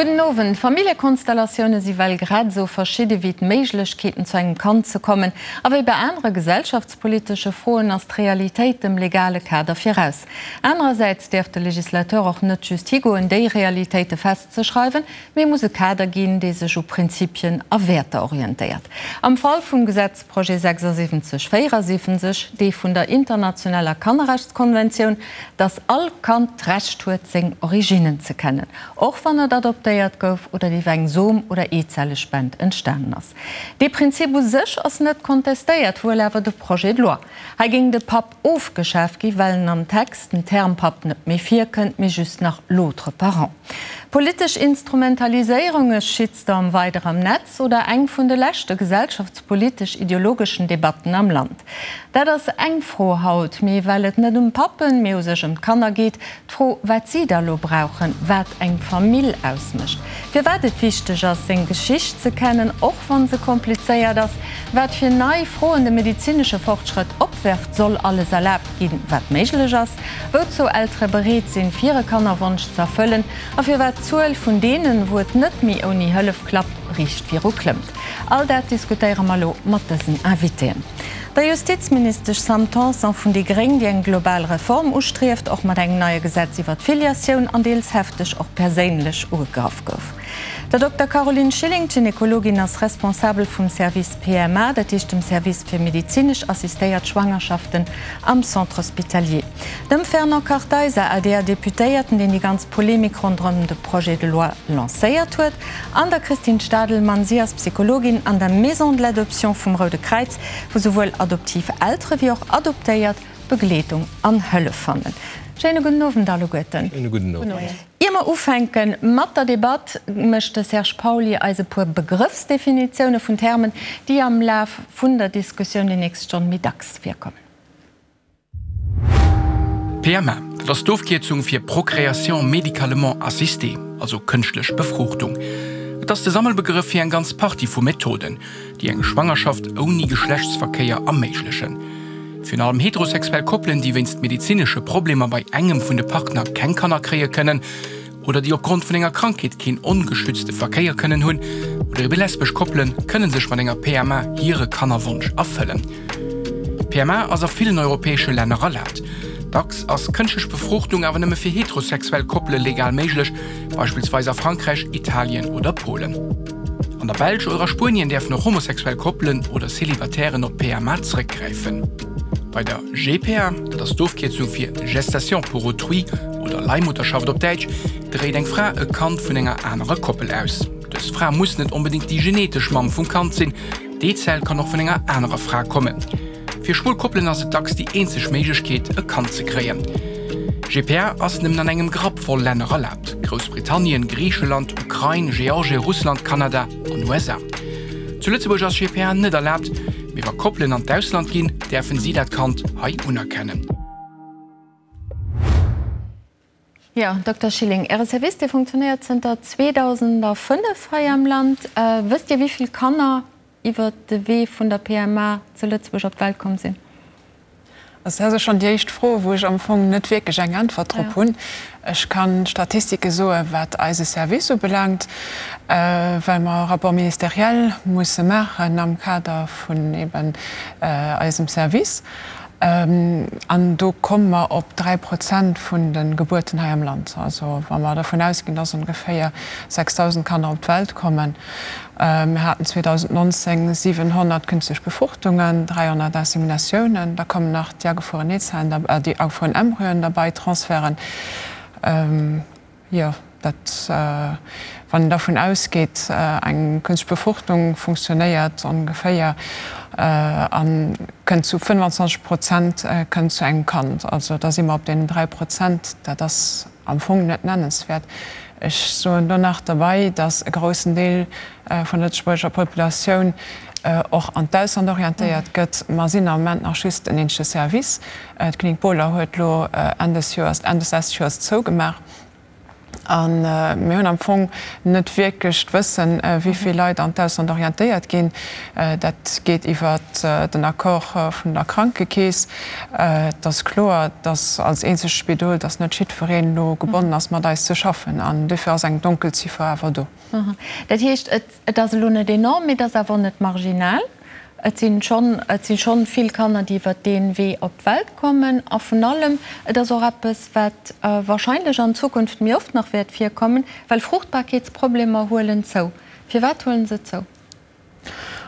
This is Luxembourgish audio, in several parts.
Gudden Owend. Familljekonstellatioune si well grad esou verschidde wéi d'Méiglechkeeten zu engem Kand ze kommen. A wéi bei anere gesellschaftspolitesche Froen ass d'Realitéit dem legale Kader viraus. Anerersäits däerf de Legislateur och net just higoen déi Realitéite festzeschreiwen, mee muss e Kader ginn, dee sech u Prinzipien a Wäerter orientéiert. Am Fall vum Gesetzprojet 76 74, dee vun der internationaler Kannerrechtskonventioun, dass all Kand d'Recht huet, seng Originnen ze kennen, och wann et adoptéiert gouf oder iwwer eng Som oder Eezellespend entstanen ass. Dee Prinzip u sech ass net kontestéiert, wuel awer de Projet de loi. Hei géing de Papp ofgeschaf gi well en am Text den Term Papp net méi virkënnt, mee just nach l'autre parent. Politesch Instrumentaliséierung, e Shitstorm weider am Netz oder eng vun de leschte gesellschaftspolitesch-ideologeschen Debatten am Land? Dat ass eng Fro haut, mee well et net ëm Pappen, mee u sech ëm d'Kanner geet, d'Fro wat si da lo brauchen, wat eng Famill ausmécht, firwat et wichteg ass seng Geschicht ze kennen, och wann se komplizéiert ass, wat fir nei Froen de medezinesche Fortschrëtt opwerft, soll alles erlaabt ginn, wat méiglech ass, wouzou Eltere bereet sinn, fir e Kannerwonsch ze erfëllen a firwat d'Zuel vun deenen, wou et net méi ouni Hëllef klappt, riicht viru klëmmt. All dat diskutéiere mer elo mat dësen Invitéen. Der Justizministesch Sam Tanson vun déi gréng, déi eng global Reform ustrieft, och mat engem neie Gesetz iwwer d'Filiatioun an deels hefteg och perséinlech ugegraff gouf. Der Dokter Caroline Schilling, Gynekologin, ass Responsabel vum Service PMA, dat heescht dem Service fir medezinesch assistéiert Schwangerschaften am Centre Hospitalier. Dem Fernand Kartheiser, ADR-Deputéierten, deen déi ganz Polemik ronderëm de Projet de loi lancéiert huet, an der Christine Stadelmann, si ass Psychologin an der Maison de l'Adoption vum Roude Kräiz, wou souwuel adoptiv Eltere wéi och Adoptéiert Begleedung an Hëllef fannen. Schéine gudden Owend alleguerten. Schéine gudden Owend. Ier mer ufänke mat der Debatt, mécht de Serge Pauly eis e puer Begrëffsdefinitioune vun Termen, déi am Laf vun der Diskussioun déi nächst Stonn méi dacks virkommen. PMA, dat ass d'Ofkierzung fir Procréation médicalement assistée, also kënschtlech Befruchtung. Et ass de Sammelbegrëff fir eng ganz Partie vu Methoden, déi eng Schwangerschaft ouni Geschlechtsverkéier erméiglechen. Virun allem heterosexuell Koppelen, déi wéinst medezinesche Problemer bei engem vun de Partner keng Kanner kréie kënnen oder déi opgrond vun enger Krankheet keen ongeschützte Verkéier kënnen hunn, oder ebe lesbesch Koppelen, kënne sech mat enger PMA hire Kannerwonsch erfëllen. D'PMA ass a villen europäesche Länner erlaabt. Dacks ass kënschtlech Befruchtung awer nëmme fir heterosexuell Koppele legal méiglech, beispillsweis a Frankräich, Italien oder Polen. An der Belsch oder a Spuenien däerfen och homosexuell Koppelen oder Celibatairen op PMA zréckgräifen. Bei der GPA, dat ass d'Ofkierzung fir Gestation pour autrui oder Leihmutterschaft op Däitsch, dréit eng Fra e Kand vun enger anerer Koppel aus. Dës Fra muss net onbedéngt déi genetesch Mamm vum Kand sinn, D'Eezell kann och vun enger anerer Fra kommen. Fir schwul Koppelen ass et dacks déi eenzeg Méiglechkeet, e Kand ze kréien. GPA ass nëmmen an engem Grapp voll Länner erlaabt, Groussbritannien, Griicheland, Ukrain, Georgie, Russland, Kanada an USA. Zu Lëtzebuerg ass GPA net erlaabt, mee wa Koppelen an d'Ausland ginn, däerfen si dat Kand hei unerkennen. Jo, Dokter Schilling, Äre Service, dee funktionéiert zënter 2005 hei am Land. Wësst Dir, wéi vill Kanner iwwer de Wee vun der PMA zu Lëtzebuerg op d'Welt komm sinn? Also dat ass schonn déi éischt Fro, wou ech am Fong net wierklech eng Äntwert drop hunn. Ech ka Statistike soen, wat eise Service ubelaangt, well mer e Rapport ministériel musse maachen am Kader vun eben eisem Service. An do komme mer op 3 Prozent vun de Gebuerten hei am Land. Also wa mer dervun ausginn, dass ongeféier 6.000 Kanner op d'Welt kommen. Mir haten 2019 700 künstlech Befruchtungen, 300 Inseminatiounen. Da kommen nach déi agefrueren Eezellen, déi agefrueren Embryoen derbei, Transferten. Jo, dat, wann een dervun ausgeet, eng kënstlech Befruchtung funktionéiert ongeféier a kënnt zu 25 Prozent kënnt zu engem Kand. Also da si mer op deenen 3 Prozent. Dat ass am Fong net nennenswäert. Ech soen do nach derbei, datt e groussen Deel vun der lëtzebuergescher Populatioun och an d'Ausland orientéiert gëtt. Mer sinn am Moment nach just en eenzege Service. D'Klinik Bohler huet elo Enn des Joers, Enn des leschte Joers zougemaach. A mir hunn am Fong net wierklech d'Wëssen, wéi vill Leit an d'Ausland orientéiert ginn. Dat geet iwwer den Accord vun der Krankekeess. Et ass kloer, dass als eenzegt Spidol, dass net jiddwereen elo gebonnen ass, mat eis ze schaffen. An duerfir ass eng Donkelziffer awer do. Dat heescht, et ass elo net enorm, mee et ass awer och net marginal. Et si schonn, et si schonn vill Kanner, déi iwwert dee Wee op d'Welt kommen. A vun allem, et ass och eppes, wat wahrscheinlech an Zukunft méi oft nach wäert virkommen, well Fruchtbarkeetsproblemer huelen zou. Firwat huelen se zou?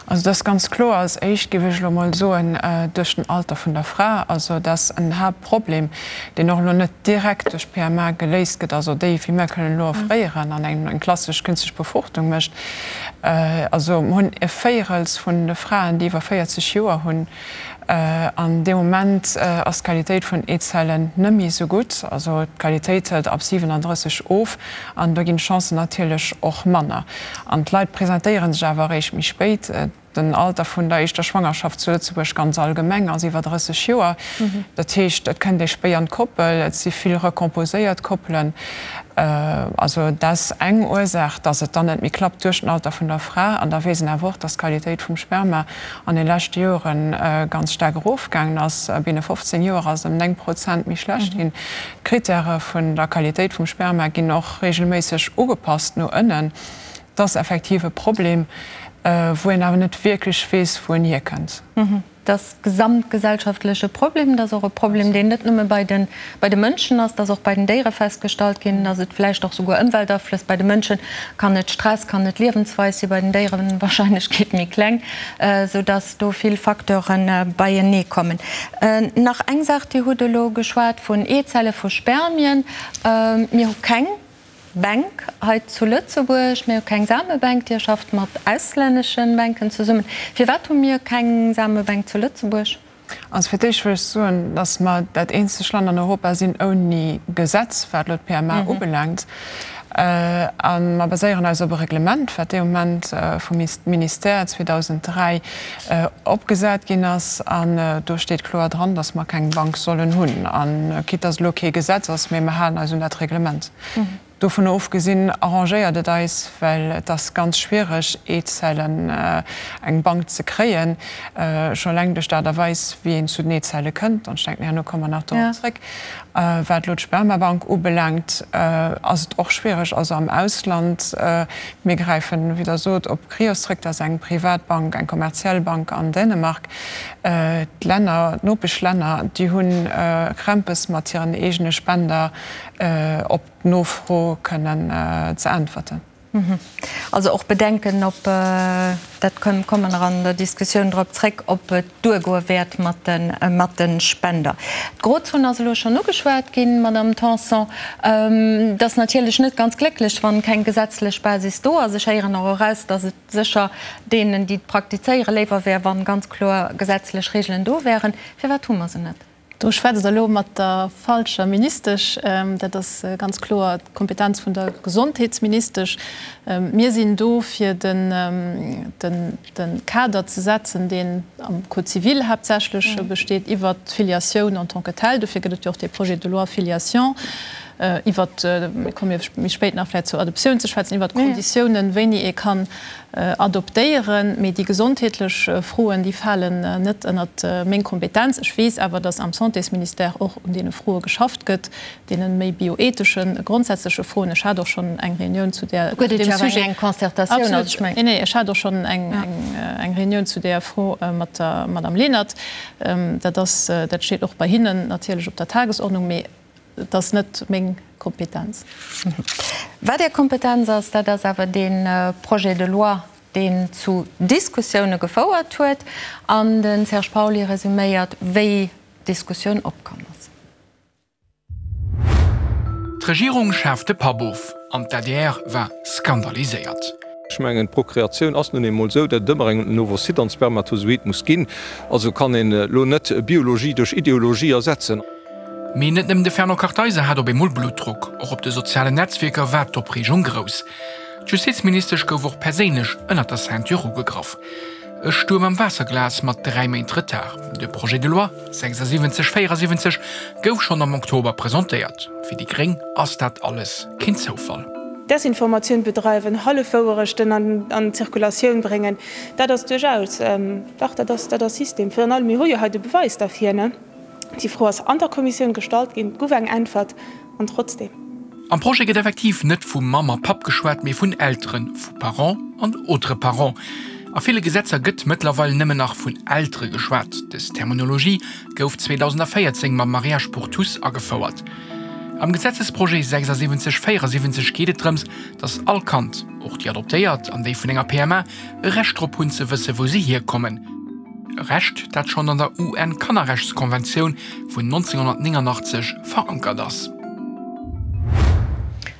Also et ass ganz kloer, als éischt géif ech elo mol soen, duerch den Alter vun der Fra. Also dat ass en Haaptproblem, deen och elo net direkt duerch PMA geléist gëtt, also déi, wéi mir kënnen elo offréieren an eng klassesch künstlech Befruchtung mécht. Also mir hunn e Véierels vun de Fraen, déi iwwer 40 Joer hunn. An dee Moment ass d'Qualitéit vun Eezellen net méi esou gutt. Also d'Qualitéit hëlt ab 37 of an do ginn d'Chancen natierlech och manner. An d'Leit presentéiere sech awer eréischt méi spéit. Den Alter vun der éischter Schwangerschaft zu Lëtzebuerg ganz allgemeng ass iwwer 30 Joer. Dat heescht, et kënnt ee spéi an d'Koppel, et si vill recomposéiert Koppelen. Also dat ass eng Ursaach, datt et dann net méi klappt duerch den Alter vun der Fra. An da weess een awer och, datt d'Qualitéit vum Sperma an de leschte Jore ganz staark erofgaangen ass. Binne 15 Joer ass et ëm 9 Prozent méi schlecht ginn. D'Krittäre vun der Qualitéit vum Sperma ginn och reegelméisseg ugepasst no ënnen. Et ass effektiv e Problem, wou een awer net wierklech weess, wou en hierkënnt. Et ass gesamtgesellschaftleche Problem. Et ass och e Problem, deen net nëmme bei de, bei de Mënschen ass. Et ass och bei den Déiere festgestallt ginn, dass et vläicht och souguer Ëmweltaflëss, bei de Mënsche kann et Stress, kann et Liewensweis sinn, bei den Déieren d'Wahrscheinlechkeet méi kleng, soudass do vill Facteure beienee kommen. Nach eng Saach, Dir hutt elo geschwat vun Eezelle, vu Spermien. Mir hu keng Bänk hei zu Lëtzebuerg. Mir hu keng Samebänk. Dir schafft mat auslännesche Bänken zesummen. Firwat hu mir keng Samebänk zu Lëtzebuerg? Also fir d'éischt wëll ech soen, datt mer dat eenzegt Land an Europa sinn ouni Gesetz, wat elo d'PMA ubelaangt. A mer baséieren eis op e Reglement, wat dee Moment vum Ministère 2003 opgesat ginn ass. An do steet kloer dran, datt mer keng Bank sollen hunn. A quitte datt elo kee Gesetz ass, mee mer halen eis un dat Reglement. Dovun ofgesinn arrangéiert et eis, well et ass ganz schwiereg, Eezellen eng Bank ze kréien, scho eleng duerch d'Aart a Weis, wéi een zu den Eezelle kënnt. An ech denken, herno komme mer nach dorop zréck. Wat elo d'Spermabank ubelaangt, ass et och schwiereg, also am Ausland. Mir gräifen, wéi Der sot, op Cryos zréck, dat ass eng privat Bank, eng kommerziell Bank an Dänemark. D'Länner, d'Nopeschlänner, déi hu Krämpes mat hiren eegene Spender op d'Nofro kënnen ze äntwerten. Also och Bedenken, ob, dat komme mer nach an der Diskussioun drop zréck, ob et duergoe wäert mat de Spender. D'Grozon ass elo schonn ugeschwat ginn, Madamm Tanson. Et ass natierlech net ganz glécklech, wann keng gesetzlech Basis do ass. Ech héieren och eraus, datt et sécher deenen, déi et praktizéieren, léiwer wär, wann ganz kloer gesetzlech Regeln do wären. Firwat hu mer se net? Do schwätzt Der elo mat der falscher Ministesch. Dat ass ganz kloer d'Kompetenz vun der Gesondheetsministesch. Mir sinn do, fir de Kader ze setzen, deen am Code civil haaptsächlech besteet, iwwert d'Filiatioun en tant que telle. Dofir gëtt et jo och dee Projet de loi Filiation. Iwwert, mir komme jo méi spéit nach vläicht zur Adoptioun ze schwätzen, iwwert d'Konditiounen, wéini ee kann adoptéieren. Mee déi gesondheetlech Froen, déi falen net ënnert meng Kompetenz. Ech weess awer, datt am Santésministère och un deene Froe geschafft gëtt, deene méi bioetheschen, grondsätzleche Froen. Ech hat och schonn eng Reunioun zu där, zu deem Sujet. Eng Concertatioun, also ech mengen. Absolut. Nee, nee, ech hat och schonn eng, eng Reunioun zu där Fro mat der Madame Lenert. Dat ass, dat steet och bei hinnen natierlech op der Tagesordnung. Mee Et ass net meng Kompetenz. Wat Är Kompetenz ass, dat ass awer dee Projet de loi, deen zu Diskussioune gefouert huet. An de Serge Pauly resuméiert, wéi d'Diskussioun opkomm ass. D'Regierung schaaft de Papp of an d'ADR war skandaliséiert. Ech mengen, d'Prokreatioun ass nun eemol esou, datt et ëmmer en Ovocyte an Spermatozoid muss ginn. Also kann een elo net Biologie duerch Ideologie ersetzen. Mee net nëmmen de Fernand Kartheiser hat op eemol Bluttdrock, och op de sozialen Netzwierker war d'Opreegung grouss. D'Justizministesch gouf och perséinlech ënnert der Ceinture ugegraff. E Stuerm am Waasserglas mat 3 Méint Retard. De Projet de loi 76 74 gouf schonn am Oktober presentéiert. Fir déi gréng ass dat alles keen Zoufall. Desinformatioun bedreiwen, Hallefwouerechten an d'Zirkulatioun bréngen, dat ass duerchaus, dach, dat ass, dat ass System. Virun allem, mir hu jo hei de Beweis derfir, ne? Déi Fro ass an der Kommissioun gestallt ginn, et gouf eng Äntwert, an trotzdem. Am Projet gëtt effektiv net vu Mamm a Papp geschwat, mee vun Elteren, vu Parents an autres parents. A ville Gesetzer gëtt mëttlerweil nëmmen nach vun Eltere geschwat. Dës Terminologie gouf 2014 mam Mariage pour tous agefouert. Am Gesetzesprojet 76 74 geet et drëms, datt all Kand, och déi adoptéiert an déi vun enger PMA, e Recht drop hunn ze wësse wou se hierkommen. E Recht, dat schonn an der UN-Kannerrechtskonventioun vun 1989 verankert ass.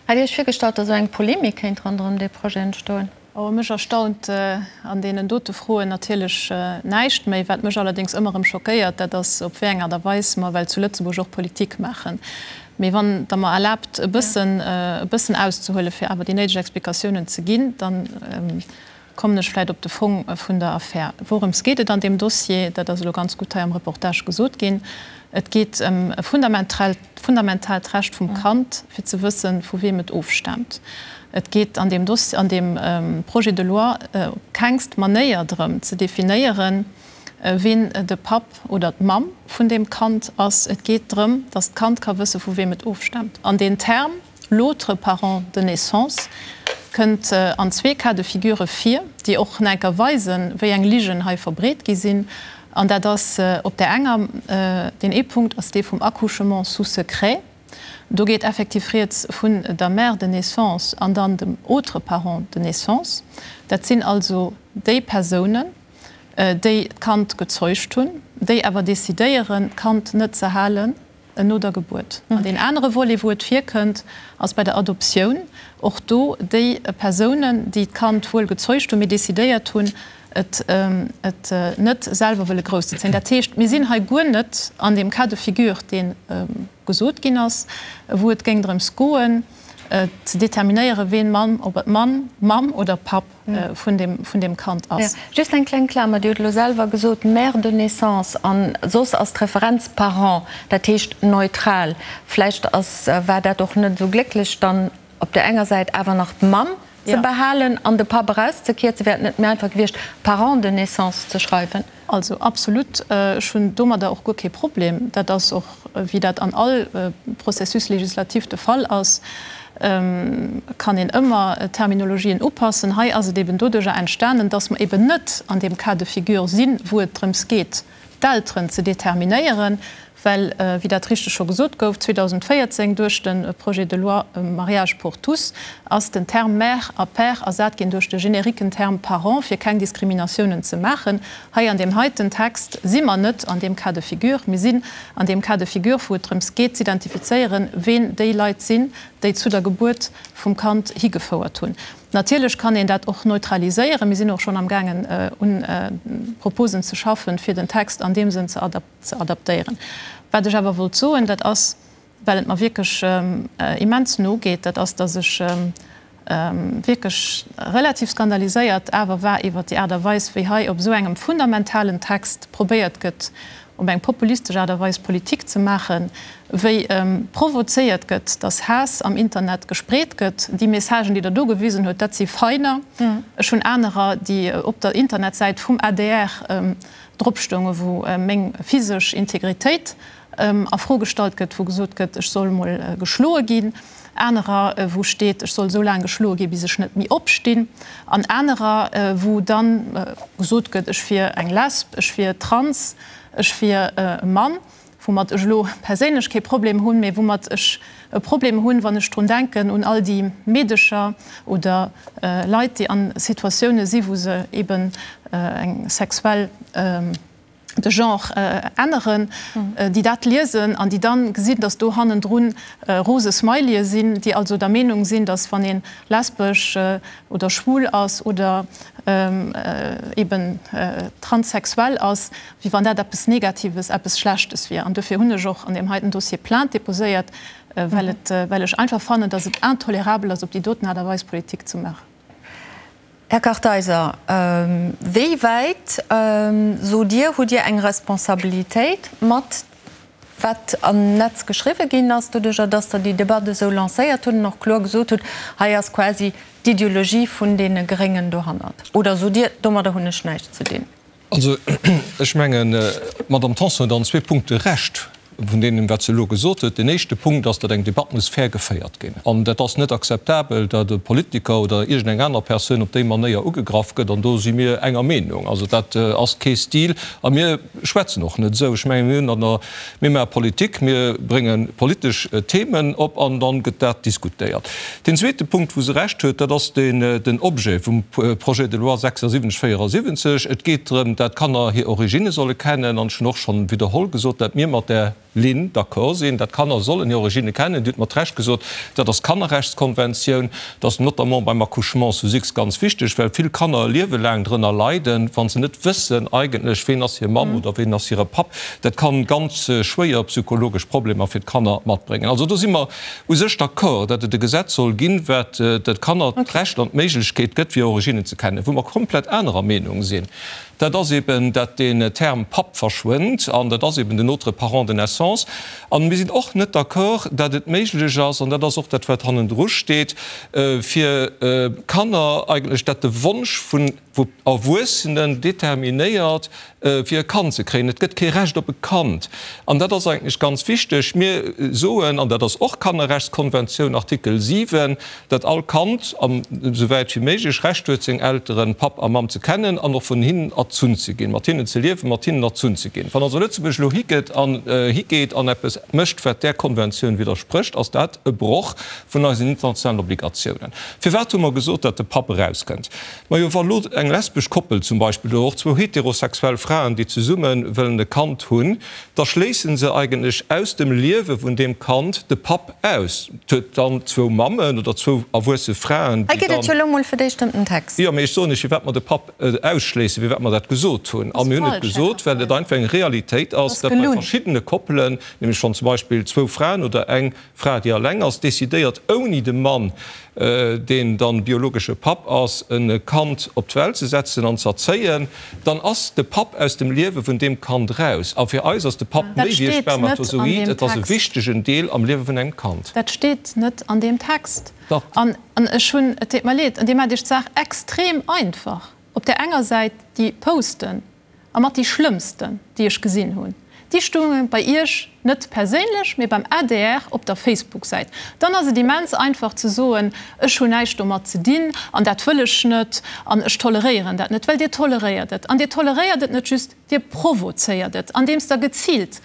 Hat Dir Iech virgestallt, datt esou eng Polemik kéint ronderëm dee Projet entstoen? Oh, mech erstaunt an deenen dote Froen natierlech näischt méi. Wat mech allerdéngs ëmmer erëm schockéiert, dat ass, op wéi eng Aart a Weis mer well zu Lëtzebuerg och Politik maachen. Mee wann Der mer erlaabt, e bëssen, e bëssen auszehuelen, fir awer déi néideg Explikatiounen ze ginn, dann kommen ech vläicht op de Fong vun der Affär. Wourëms geet et an deem Dossier? Dat ass elo ganz gutt hei am Reportage gesot ginn. Et geet ëm e fundamentaalt Recht vum Kand, fir ze wëssen, vu weem et ofstaamt. Et geet an deem Dossier, an deem Projet de loi op kengst Manéier drëm ze definéieren, ween de Papp oder d'Mamm vun deem Kand ass. Et geet drëm, datt d'Kand ka wësse vu weem et ofstaamt. An deen Term l'autre parent de naissance kënnt an zwee Cas de figure vir, déi och nach enker weisen, wéi eng Ligen hei verbreet gi sinn. An dat ass op där enger, deen ee Punkt ass dee vum Accouchement sous secret. Do geet effektiv rieds vun der Mère de naissance an dann dem autre parent de naissance. Dat sinn also déi Persounen, déi d'Kand gezeugt hunn, déi awer decidéieren, d'Kand net ze halen no der Gebuert. An deen anere Volet, wou et virkënnt, ass bei der Adoptioun. Och do déi Persounen, déi d'Kand wuel gezeugt hunn, mee decidéiert hunn, et net selwer wëlle grousszezéien. Dat heescht, mir sinn hei guer net an deem Cas de figure, dee gesot ginn ass, wou et géing drëms goen, ze determinéieren, ween Mann, ob et Mann, Mamm oder Papp vun deem Kand ass. Just eng kleng Klamer, Dir hutt elo selwer gesot, Mère de naissance, an soss ass d'Referenz Parent, dat heescht neutral. Vläicht ass, war dat och net esou glécklech dann op där enger Säit awer nach d'Mamm ze behalen an de Papp erauszekierzen. Wär et net méi einfach gewiescht, Parent de naissance ze schreiwen? Also absolut, ech hunn domadder och guer kee Problem. Dat ass och, wéi dat an all Processus législatif de Fall ass, kann een ëmmer Terminologien upassen. Hei ass et eben doduerjer entstanen, dass mer eben net an deem Cas de figure sinn, wou et drëms geet, d'Elteren ze determinéieren, well, wéi dat richteg scho gesot gouf, 2014 duerch de Projet de loi Mariage pour tous ass den Term mère a père ersat ginn duerch de generiquen Term parent, fir keng Diskriminatiounen ze maachen. Hei an deem heiten Text si mer net an deem Cas de figure. Mir sinn an deem Cas de figure, wou et drëms geet z'identifizéieren, ween déi Leit sinn, déi zu der Gebuert vum Kand higefouert hunn. Natierlech kann een dat och neutraliséieren. Mir sinn och schonn amgaangen un Proposen ze schaffen, fir den Text an deem Sënn ze adaptéieren. Wat ech awer wollt soen, dat ass, well et mer wierklech immens no geet, dat ass, dass ech wierklech relativ skandaliséiert awer war iwwert déi Aart a Weis, wéi hei op esou engem fundamentalen Text probéiert gëtt, op eng populistesch Aart a Weis Politik ze maachen, wéi provozéiert gëtt, dass Haass am Internet gespreet gëtt. Déi Messagen, déi Der do gewisen hutt, dat si feiner. Ech hunn anerer, déi op der Internetsäit vum adr drop stoungen, wou meng physesch Integritéit a Fro gestallt gëtt, wou gesot gëtt, ech soll mol geschloe ginn, anerer, wou steet, ech soll esou laang geschloe ginn, bis ech net méi opstinn, an anerer, wou da gesot gëtt, ech wier eng Lesb, ech wier trans, ech wier e Mann, woumat ech elo perséinlech kee Problem hunn, mee woumat ech e Problem hunn, wann ech drun denken, un all déi Meedecher oder Leit, déi a Situatioune si wou se eben eng sexuell, de Genre änneren, déi dat liesen an déi dann gesinn, dass do hannendrun rose Smileye sinn, déi also der Meenung sinn, dass wann ee lesbesch oder schwul ass oder eben transsexuell ass, wéi wann dat eppes Negatives, eppes Schlechtes wier. An dofir hunn ech och an deem heiten Dossier Plainte déposéiert, well et, well ech einfach fannen, dass et intolerabel ass, op déi doten Aart a Weis Politik ze maachen. Här Kartheiser, wéi wäit, sot Dir, hutt Dir eng Responsabilitéit mat wat am Netz geschriwwe ginn ass, doduerjer datt Der déi Debatt esou lancéiert hutt an och kloer gesot hutt, hei ass quasi d'Ideologie vun deene Gréngen dohannert? Oder sot Dir, domadder hunn ech näischt ze dinn? Also, ech mengen, d'Madame Tanson huet an zwee Punkte Recht vun deenen, wat se elo gesot huet. Deen éischte Punkt ass, datt eng Debatt muss fair geféiert ginn. An dat ass net akzeptabel, datt e Politiker oder iergendeng aner Persoun op déi Manéier ugegraff gëtt. An do si mir enger Meenung. Also dat ass kee Stil. A mir schwätzen och net esou. Ech mengen, mir hunn an der, mir maache Politik, mir brénge politesch Themen op an dann gëtt dat diskutéiert. Deen zweete Punkt, wou se Recht huet, dat ass den Objet vum Projet de loi 7674. Et geet drëm, dat d'Kanner hir Originne solle kennen. An ech hunn och schonn widderholl gesot, dat mir mat där Linn d'accord sinn, dat d'Kanner sollen hir Originne kennen. Dir hutt mat Recht gesot, dat ass d'Kannerrechtskonventioun. Dat ass notamment beim Accouchement sous X ganz wichteg, well vill Kanner e Liewe laang drënner leiden, wa se net wëssen eigentlech, ween ass hir Mamm oder ween ass hire Papp. Dat kann ganz schwéier psychologesch Problemer fir d'Kanner matbréngen. Also do si mer u sech d'accord, datt et e Gesetz soll ginn, wat de Kanner d'Recht an d'Méiglechkeet gëtt, fir hir Originnen ze kennen. Wou mer komplett anerer Meenung sinn, dat ass eben, datt deen Term Papp verschwënnt, an dat ass eben den autre parent de naissance. An mir sinn och net d'accord, datt et méiglech ass, an dat ass och dat, wat hannendru steet, fir Kanner eigentlech, datt de Wonsch vun Erwuessenen determinéiert, fir e Kand ze kréien. Et gëtt kee Recht op e Kand. An dat ass eigentlech ganz wichteg. Mir soen, an dat ass och Kannerrechtskonventioun, Artikel 7, datt all Kand, esouwäit wéi méiglech, Recht huet, seng Elteren, Papp a Mamm, ze kennen an och vun hinnen erzunn ze ginn, mat hinnen ze liewen, mat hinnen erzunn ze ginn. Wann also Lëtzebuerg elo higeet an higeet an eppes mécht, wat där Konventioun widdersprécht, ass dat e Broch vun eisen internationalen Obligatiounen. Firwat hu mer gesot, datt de Papp erauskënnt? Majo, wa lo eng lesbesch Koppel zum Beispill oder och zwou heterosexuell Fraen, déi zesumme wëllen e Kand hunn, da schléisse se eigentlech aus dem Liewe vun deem Kand de Papp aus. Et huet dann zwou Mammen oder zwou erwuesse Fraen, Hei déi geet et dann. jo elo mol fir d'éischt ëm den Text. Jo, mee ech soen lech, firwat mer de Papp ausschléissen, firwat mer dat gesot hunn. A Ass mir hunn et falsch, Här gesot, well et Kartheiser. einfach eng Realitéit ass, Ass datt bei gelunn. verschiddene Koppelen, nämlech wann zum Beispill zwou Fraen oder eng Fra, déi alleng ass, decidéiert ouni de Mann, deen dann biologesche Papp ass, e Kand op d'Welt ze setzen an z'erzéien, dann ass de Papp aus dem Liewe vun deem Kand raus. A fir eis ass de Papp Dat méi wéi e steet net an Spermatozoid, deem et ass e Text. wichtegen Deel am Liewe vun engem Kand. Dat steet net an deem Text. Dach. An ech hunn, et deet mer leed, an Dir maacht Iech d'Saach extrem einfach. Op där enger Säit déi Posten, A mat déi schlëmmsten, déi ech gesinn hunn, déi stounge bei Iech, net perséinlech, mee beim adr op der Facebook-Säit. Dann ass et immens einfach ze soen, ech hunn näischt domat ze dinn an dat wëll ech net an ech toleréieren dat net. Well Dir toleréiert et. An Dir toleréiert et net just, Dir provozéiert et, andeems Der geziilt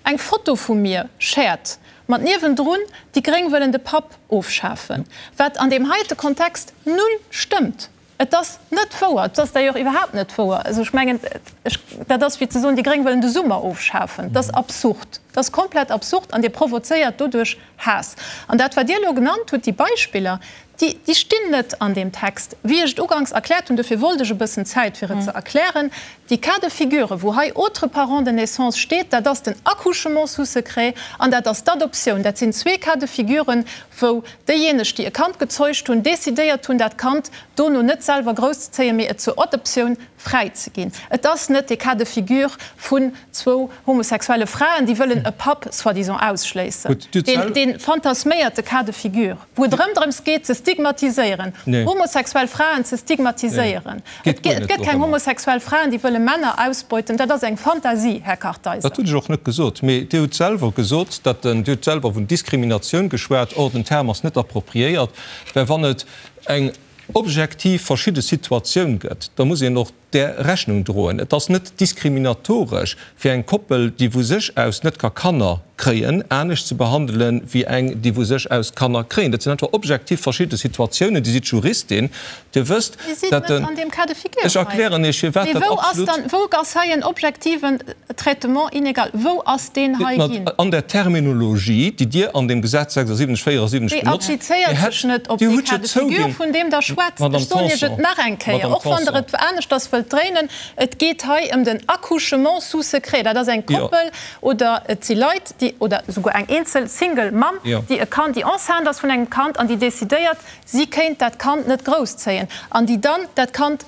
eng Foto vu mir shared mat niewendrun, déi Gréng wëllen de Papp ofschafen, wat an deem heite Kontext null stëmmt. Et ass net wouer. Et ass d'ailleurs iwwerhaapt net wouer. Also ech mengen, ech, dat ass wéi ze soen, déi Gréng wëllen de Summer ofschafen. Dat ass absurd. Dat ass komplett absurd an Dir provozéiert doduerch Haass. An dat, wat Dir elo genannt hutt, déi Beispiller, déi, déi stinn net an deem Text. Wéi ech et uganks erkläert hunn, dofir wollt ech e bëssen Zäit, fir et ze erklären, déi Cas de figure, wou hei autre parent de naissance steet, dat ass den Accouchement sous secret an dat ass d'Adoptioun. Dat sinn zwee Cas de figuren, wou déijéineg, déi e Kand gezeugt hunn, decidéiert hunn, dat Kand dono net selwer grousszezéien, mee et zur Adoptioun fräizeginn. Et ass net de Cas de figure vun zwou homosexuelle Fraen, déi wëllen e Papp soi-disant ausschléissen, dee fantasméierte Cas de figure, wou et erëm drëms geet, ze stigmatiséieren, homosexuell Fraen ze stigmatiséieren. Et gëtt keng homosexuell Fraen, déi wëlle Männer ausbeuten. Dat ass eng Fantasie, Här Kartheiser. Dat hunn ech och net gesot. Mee Dir hutt selwer gesot, datt den, Dir hutt selwer vun Diskriminatioun geschwat. Or, den Term ass net appropriéiert, well wann et eng objektiv verschidde Situatioun gëtt, da muss een och där Rechnung droen. Et ass net diskriminatoresch fir eng Koppel, déi vu sech aus net ka Kanner kréien, anescht ze behandelen, wéi eng, déi vu sech aus Kanner kréien. Dat sinn einfach objektiv verschidde Situatiounen. Dir sidd Juristin, Dir wësst, Dir sidd dat net den. an deem Cas de figure Ech hei. erklären Iech, firwat Mee dat wou ass absolut. dann, wou ass hei en objektiven Traitement inégal? Wou ass deen hei ginn? An der Terminologie, déi Dir an deem Gesetz 76, 74 Déi benotzt, Dir applizéiert hätt, sech net op Dir dee hutt jo Cas de figure, zouginn, vun deem Der schwätzt. Madame Ech soen Iech et Tanson, nach eng Kéier, Madame och wann Der Tanson. et aneschters wëllt dréinen, Et geet hei ëm den Accouchement sous secret. Dat ass eng Jo. Koppel oder et si Leit, déi. déi, oder souguer eng eenzel Single Mamm, déi e Kand, déi enceinte ass vun engem Kand an déi decidéiert, si kéint dat Kand net grousszéien an déi dann dat Kand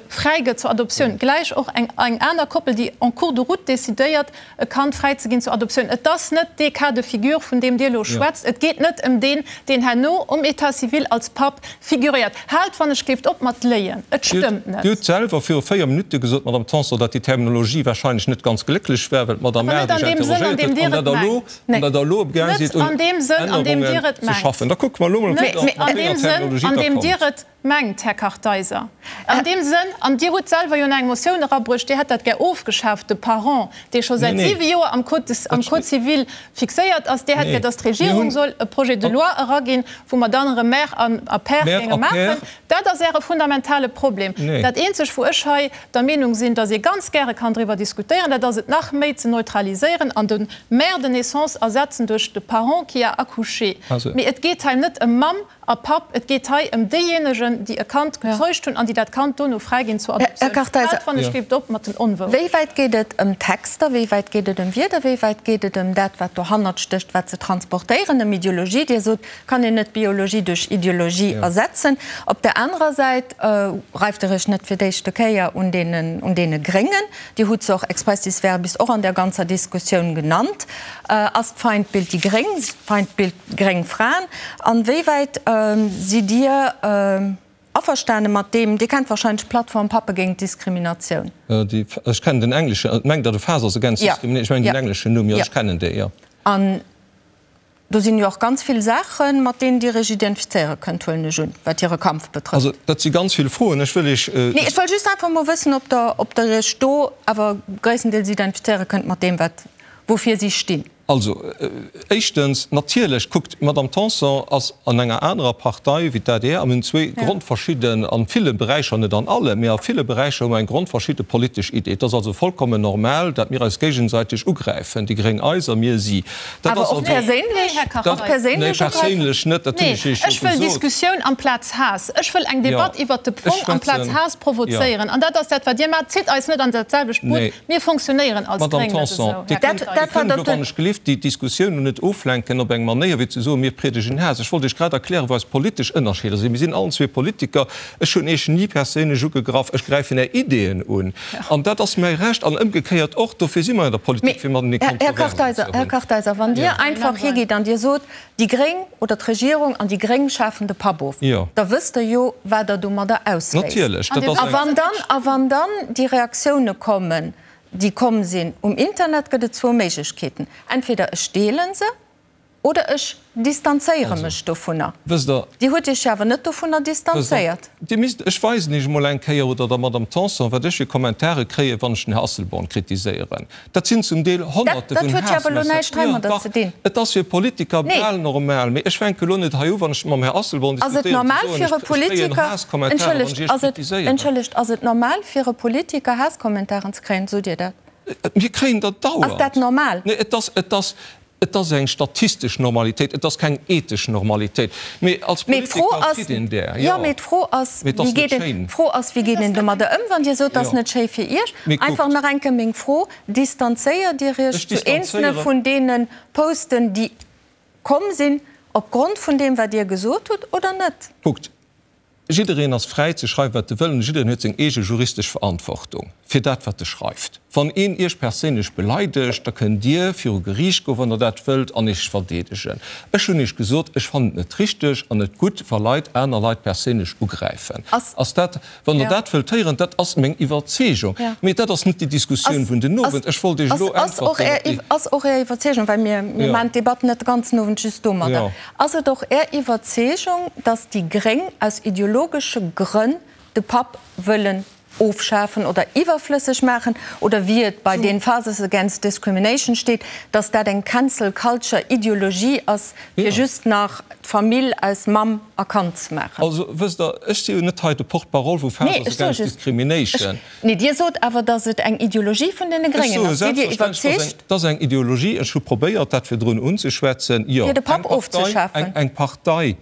fräigëtt zur Adoptioun, gläich och eng eng aner Koppel, déi en cours de route decidéiert, e Kand fräizeginn zur Adoptioun. Et ass net dee Cas de figure, vun deem Dir elo schwätzt. Et geet net ëm deen, deen herno um État civil als Papp figuréiert. Haalt wann ech géift op mat léien. Et stëmmt net. Dir hutt selwer viru 4 Minutte gesot, Madame Tanson, datt déi Terminologie wahrscheinlech net ganz glécklech war, well d'Madame Adesch interrogéiert huet, an datt Der elo, an datt Der elo amgaang sidd, un Ännerungen ze schaffen. Da kucke mer elo mol, mat wéi enger Terminologie Der kommt. Mengt, Här Kartheiser. An deem Sënn, an Dir hutt selwer jo nach eng Motioun erabruecht, Dir hätt dat gär ofgeschaaft, de Parent, dee scho säit siwe Joer am Code, am Code civil fixéiert ass, Dir hätt gär, dass d'Regierung soll e Projet de loi eraginn, wou mer dann erëm Mère an a Père géinge maachen. Dat ass Äre fundamentale Problem. Dat eenzeg, wou ech hei der Meenung sinn, dass ee ganz gäre kann driwwer diskutéieren, dat ass et nach méi ze neutraliséieren an de Mère de naissance ersetzen duerch de Parent qui a accouché. Mee et geet hei net ëm Mamm A Papp, et geet hei ëm déijéinegen, déi e Kand gezeugt hunn an déi dat Kand dono fräiginn zur Adoptioun. Här Kartheiser, Haalt wann ech géif op mat den Onwourechten. Wéi wäit geet et ëm Texter, wéi wäit geet et ëm Wierder, wéi wäit geet et ëm dat, wat dohannert stécht, wat se transportéieren, ëm Ideologie? Dir sot, kann een net Biologie duerch Ideologie ersetzen. Op der anerer Säit reift Der Iech net fir d'éischte Kéier un deenen, un deene Gréngen. Dir hutt se och expressis verbis och an der ganzer Diskussioun genannt. Ass d'Feindbild déi Gréng, d'Feindbild Gréng Fraen, an wéi wäit sidd Dir averstane mat deem, Dir kennt wahrscheinlech d'Plattform Pappe géint Diskriminatioun? Ech kennen den engleschen, mengt Der de Fathers Against Discrimination? Ech mengen den engleschen Numm, jo, ech kennen dee, jo. An do sinn jo och ganz vill Saachen, mat deenen Dir Iech identifizéiere kënnt, huelen ech un, wat hire Kampf betrëfft. Also, dat si ganz vill Froen. Ech wëll Iech. Nee, ech wëll just einfach emol wëssen, ob Der, ob Der Iech do awer gréisstendeels identifizéiere kënnt mat deem, wat, woufir si stinn. Also, éischtens, natierlech, kuckt, d'Madame Tanson ass an enger anerer Partei wéi d'ADR a mir hunn zwee grondverschidden, a ville Beräicher, net an alle, mee a ville Beräicher hu mer eng grondverschidde politesch Idee. Et ass also vollkommen normal, dat mir eis géigesäiteg ugräifen, déi Gréng eis a mir si. Dat ass Awer och also. perséinlech? Och perséinlech Nee, perséinlech net, dat hunn ech Nee, Iech jo ech wëll gesot. Diskussioun amplaz Haass. Ech wëll eng Jo, Debatt iwwert de ech Fong amplaz schwätzen, Haass jo. provozéieren. An dat ass dat, wat Dir maacht. Zitt eis net an dat selwecht Boot. Nee. Mir fonctionnéieren als Madame Gréng net Tanson, esou, Dir Här kënnt, Kartheiser. Dir kënnt elo, wann ech gelift, déi Diskussioun net oflenken op eng Manéier, wéi ze soen, mir priedegen Haass. Ech wollt Iech grad erklären, wou eis politesch Ënnerscheeder sinn. Mir sinn allen zwee Politiker. Ech hunn Iech ni perséinlech ugegraff. Ech gräifen Är Ideeën un. An dat ass mäi Recht. An ëmgekéiert och. Dofir si mer an der Politik, fir matenee Här Kontroversen ze Kartheiser, Här hunn. Kartheiser, wann Dir einfach higitt an Dir sot, déi Gréng oder d'Regierung an déi Gréng schafen de Papp of, da wësst Der jo, wat Der domadder ausléist. Natierlech, dat ass A eng. wann dann, a wann dann déi Reaktioune kommen, déi komm sinn um Internet, gëtt et zwou Méiglechkeeten, Entweder ech deele se oder ech distanzéiere mech dovunner. Wësst Der. Dir hutt Iech jo awer net dovunner distanzéiert. Dir misst, ech weisen Iech emol eng Kéier, oder der Madame Tanson, wat ech fir Kommentare kréien, wann ech den Här Asselborn kritiséieren. Dat sinn zum Deel Honnerte Dat vun huet jo awer elo Haassmessagen. näischt heimadder Jo, dach, ze dinn. et ass fir Politiker Nee. bal normal. Mee ech fänke elo net hei u, wann ech mam Här Asselborn Ass et diskutéieren, ze normal soen, fir ech e ech kréien Politiker, Haasskommentare, wann ech entschëllegt, Iech ass et, kritiséieren. entschëllegt, ass et normal fir e Politiker Haasskommentaren ze kréien? Sot Dir dat? Mir kréien der dauernd. Ass dat normal? Nee, et ass, et ass, Et ass eng statistesch Normalitéit, et ass keng ethesch Normalitéit. Mee als Mee d'Fro Politiker ass, kritt een där, jo, jo. mee d'Fro ass, Mee et wéi ass net geet een, schéin. d'Fro ass, wéi geet een domadder ëm, wann Dir sot, et ass Jo. net schéi fir Iech? Mee Einfach kuckt. nach eng Kéier meng Fro, Distanzéiert Dir Iech Ech zu eenzelne distanzéiere. vun deene Posten, déi komm sinn, opgrond vun deem, wat Dir gesot hutt, oder net? Kuckt, Jiddereen ass fräi ze schreiwen, wat e wëll, an jiddereen huet seng eege juristesch Verantwortung fir dat, wat e schreift. Wann een Iech perséinlech beleidegt, da kënnt Dir viru Geriicht goen, wann Der dat wëllt, an Iech verdeedegen. Ech hunn Iech gesot, ech fannen et net richteg an net gutt, wa Leit aner Leit perséinlech ugräifen. Ass dat, wann Der dat wëllt héieren, dat ass meng Iwwerzeegung. Mee dat ass net déi Diskussioun vun den Owend. Ech wollt Iech elo Ass och äntwerten op déi. Ass och Är Iwwerzeegung, well mir maachen d'Debatt net de ganzen Owend just domadder. Ass et och Är Iwwerzeegung, datt déi Gréng aus ideologesche Grënn de Papp wëllen ofschafen oder iwwerflësseg maachen, oder wéi et bei den Fathers Against Discrimination steet, datt dat eng Cancel Culture Ideologie ass, fir just nach d'Famill aus Mamm a Kand ze maachen? Also, wësst Der, ech si jo net hei de Porte-parole vu Fathers Against Discrimination. Nee, Dir sot awer, datt et eng Ideologie vun deene Ech Gréngen soe ass. Sidd Dir selbstverständlech, iwwerzeegt? Et ass eng Ideologie. Ech hu probéiert, dat virdrun unzeschwätzen. Jo, Fir de eng Papp Partei, ofzeschafen. eng Partei,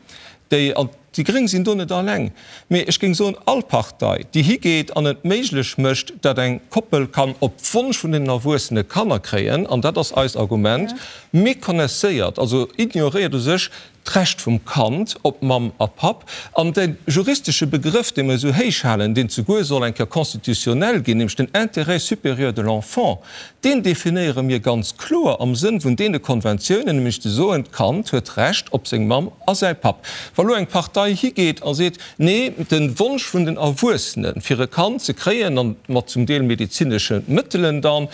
déi an. Déi Gréng sinn do net alleng, mee ech géing soen, all Partei, déi higeet an et méiglech mécht, datt eng Koppel kann op Wonsch vun den Erwuessene Kanner kréien, an dat ass eist Argument, méconnaisséiert, also ignoréiert u sech d'Recht vum Kand op Mamm a Papp. An de juristesche Begrëff, dee mer esou héich halen, deen zeguer soll eng Kéier constitutionnel ginn, nämlech den Intérêt supérieur de l'enfant, Deen definéiere mir ganz kloer am Sënn vun deene Konventiounen, nämlech ze soen, d'Kand huet Recht op seng Mamm a säi Papp. Wa lo eng Partei higeet a seet, nee, de Wonsch vun den Erwuessene fir e Kand ze kréien, an mat zum Deel medezinesche Mëttelen dann,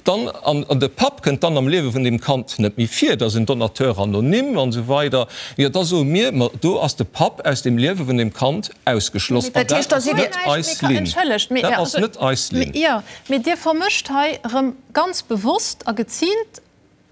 dann, an de Papp kënnt dann am Liewe vun deem Kand net méi vir, dat ass en Donateur anonyme an esou weider, jo da soe mir, ma do ass de Papp aus dem Liewe vun deem Kand ausgeschloss. An dat ass net eis Linn. Dat ass net eis Linn. Mee Dir vermëscht hei erëm ganz bewosst a geziilt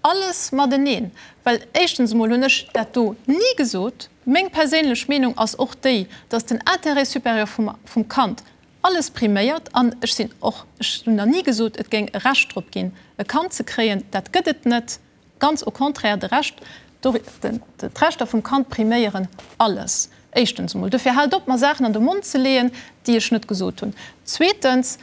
alles mateneen. Well éischtens emol hunn ech dat do ni gesot. Meng perséinlech Meenung ass och déi, dass den Intérêt supérieur vum Kand alles priméiert. An ech sinn och, ech hunn nach ni gesot, et géing e Recht drop ginn, e Kand ze kréien. Dat gëtt et net. Ganz au contraire, de Recht, d'Rechter vum Kand priméieren alles, éischtens emol. Dofir haalt op, mer Saachen an de Mond ze leeën, déi ech net gesot hunn. Zweetens,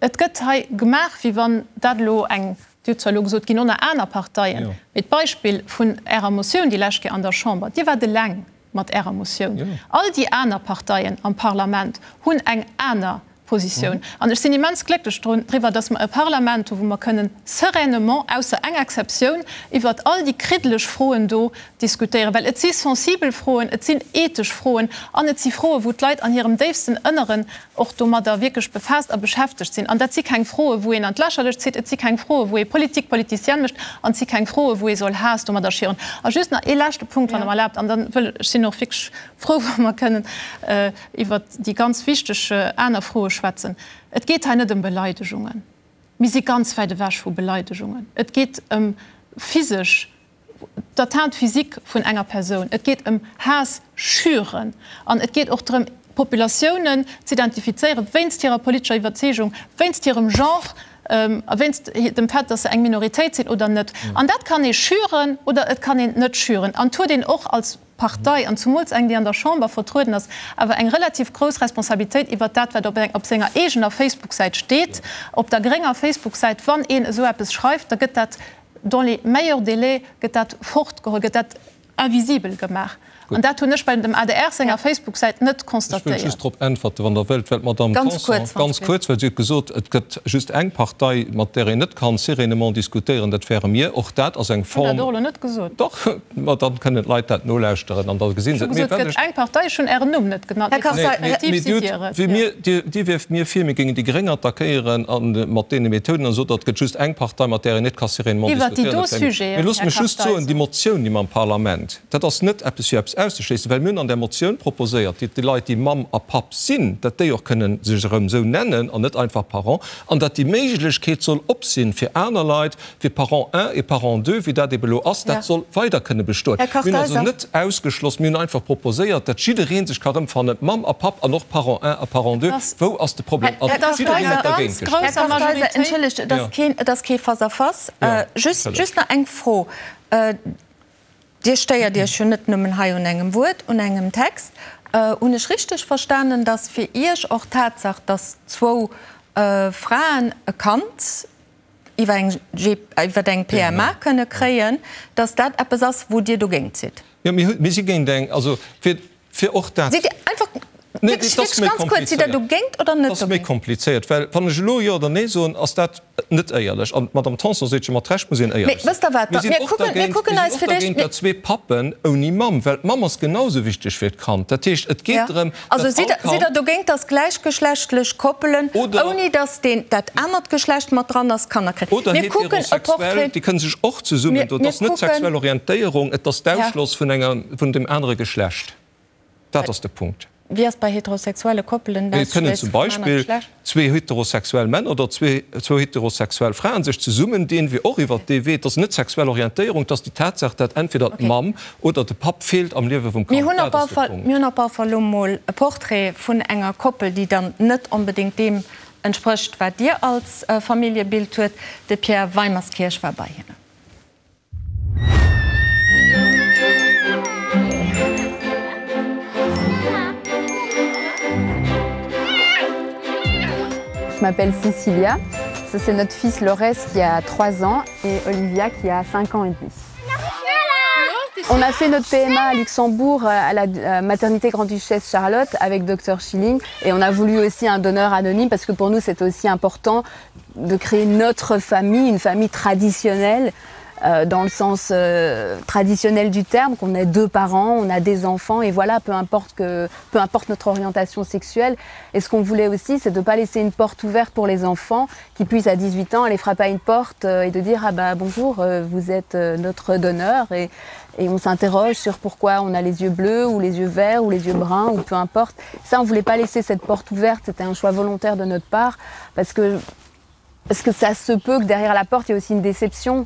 et gëtt hei gemaach, wéi wann dat elo eng, Dir hutt zwar elo gesot, et ginn och nach aner Parteien, mee d'Beispill vun Ärer Motioun déi lescht Kéier an der Chamber, Dir waart eleng mat Ärer Motioun. All déi aner Parteien am Parlament hunn eng aner Positioun. An ech sinn immens glécklech driwwer, dass mer e Parlament hu wou mer kënnen sereinement, ausser eng Exceptioun, iwwert all déi kriddeleg Froen do diskutéieren. Well et si sensibel Froen, et sinn ethesch Froen an et si Froen, wou d'Leit an hirem déifsten Ënneren och domadder wierklech befaasst a beschäftegt sinn. An dat si keng Froen, wou een an d'Lächerlecht zitt, et si keng Froen, wou ee Politique politicienne mécht an et si keng Froen, wou ee soll Haass domadder schieren. A just nach ee leschte Punkt, wann Der mer erlaabt, an dann wëll, ech sinn och wierklech frou, wa mer kënnen iwwert déi ganz wichteg aner Froe schwätzen. Et geet hei net ëm Beleidegungen. Mir si ganz wäit ewech vu Beleidegungen. Et geet ëm physesch, d'Atteinte physique vun enger Persoun. Et geet ëm Haass schüren. An et geet och drëm, Populatiounen z'identifizéieren, wéinst hirer politescher Iwwerzeegung, wéinst hirem Genre a wéinst dem Fait, dass se eng Minoritéit sinn oder net. An dat kann ee schüren oder et kann een net schüren. An et huet een och als Partei, an zumools eng, déi an der Chamber vertrueden ass, awer eng relativ grouss Responsabilitéit iwwert dat, wat op senger eegener Facebook-Säit steet. Op der grénger Facebook-Säit, wann een esou eppes schreift, da gëtt dat dans les meilleurs délais gëtt dat fortgeholl, gëtt dat invisibel gemaach. An dat hunn ech bei dem adr senger Facebook-Säit net Ech wëll constatéiert. just drop äntwerten, wann Der wëllt, well d'Madame Tanson, ganz kuerz, well si huet gesot, et gëtt just eng Partei, mat där een net kann sereinement diskutéieren, dat wäre mir. Och dat ass eng Ech hunn Form. dat och elo net gesot. Dach, ma dann kënnen d'Leit dat nolauschteren an da gesi se Ech et. hu Mee gesot, et wat gëtt ech. eng Partei, ech hunn Ären Numm net genannt, Här mee Kartheiser, konstruktiv Mee sidd Dir Dir hutt, et, wéi jo. mir, Dir, Dir wierft mir vir, mir géingen déi Gréng attackéieren a mat deene Methoden an sot, et gëtt just eng Partei, mat där een net ka sereinement Iwwert déi diskutéieren, do dat wäre mir. Mee Sujeten, loosst Här mech just soen, déi Kartheiser. Motioun, déi mer am Parlament, Dat ass net eppes fir eppes auszeschléissen, well mir hunn an där Motioun proposéiert, datt déi Leit, déi Mamm a Papp sinn, datt déi och kënnen sech erëm esou nennen an net einfach Parent, an datt déi Méiglechkeet soll op sinn fir aner Leit, fir Parent un et Parent deux, wéi dat ebe elo ass, dat soll weider kënne bestoen. Här Mir hunn also Kartheiser. net ausgeschloss, mir hunn einfach proposéiert, datt jidderee sech ka rëmfannen, Mamm a Papp an och Parent un a Parent deux. Wou ass de Problem? Här An jiddereen huet Kartheiser, dergéint gestëmmt. Här Kartheiser, entschëllegt, et ass keen, et ass kee Face-à-face. Just, just nach eng Fro. Dir stéiert Iech jo net nëmmen hei un engem Wuert, un engem Text. Hunn ech richteg verstanen, datt fir Iech och d'Tatsaach, datt zwou Fraen e Kand iwwer eng iwwer eng PMA kënne kréien, datt dat eppes ass, wou Dir dogéint sidd? Jo, mir si géint eng, also fir Fir och dat. Sidd Dir einfach, Nee, wierklech, et ass wierklech méi ganz kuerz, sidd Der komplizéiert. dogéint oder net Et ass méi dogéint? komplizéiert, well wann ech elo Jo oder Nee soen, ass dat net éierlech. An d'Madame Tanson seet jo mat Recht, muss een Mee éierlech sinn. wësst Der wat, Mir da, sinn mir och kucken, mir dergéint, kucken mir eis sinn och fir d'éischt, dergéint, mir. datt zwee Pappen ouni Mamm, well d'Mamm ass genau esou wichteg fir d'Kand. Dat heescht, et geet Ja. drëm, Also datt sidd all Der, sidd Der Kand. dogéint, datt gläichgeschlechtlech Koppelen, Oder. ouni datt deen, dat anert Geschlecht mat dran ass, Kanner kréien? Oder Mir kucken e heterosexuell, Portrait. déi kënne sech och zesummen Mir, doen. Et mir ass net kucken. d'sexuell Orientéierung, et ass Ja. d'Ausschloss vun enger, vun dem anere Geschlecht. Dat ass de Punkt. Wéi ass bei heterosexuelle Koppelen Et kënnen d'Ausschléisse zum vum anere Beispill Geschlecht? zwee heterosexuell Männer oder zwou heterosexuell Fraen sech zesummendinn, wéi och iwwert dee Wee. Et ass net d'sexuell Orientéierung, et ass déi Tatsaach, dat entweder d'Mamm oder de Papp feelt am Liewe vum Mir Kand. hunn op Dat all ass de Fall, Punkt. mir hunn op all Fall elo mol e Portrait vun enger Koppel, déi dann net onbedéngt deem entsprécht, wat Dir als Familljebild huet. De Pierre Weimerskirch war bei hinnen. Je m'appelle Cecilia. Ça c'est notre fils Lores qui a 3 ans et Olivia qui a 5 ans et demi. On a fait notre PMA à Luxembourg à la euh, maternité Grand-Duchesse Charlotte avec Dr Schilling et on a voulu aussi un donneur anonyme parce que pour nous c'est aussi important de créer notre famille, une famille traditionnelle euh, dans le sens euh, traditionnel du terme, qu'on ait deux parents, on a des enfants et voilà, peu importe, que, peu importe notre orientation sexuelle. Et ce qu'on voulait aussi, c'est de ne pas laisser une porte ouverte pour les enfants qui puissent à 18 ans aller frapper à une porte euh, et de dire ah bah bonjour, euh, vous êtes euh, notre donneur et, et on s'interroge sur pourquoi on a les yeux bleus ou les yeux verts ou les yeux bruns ou peu importe. Ça, on voulait pas laisser cette porte ouverte, c'était un choix volontaire de notre part parce que parce que ça se peut que derrière la porte il y ait aussi une déception.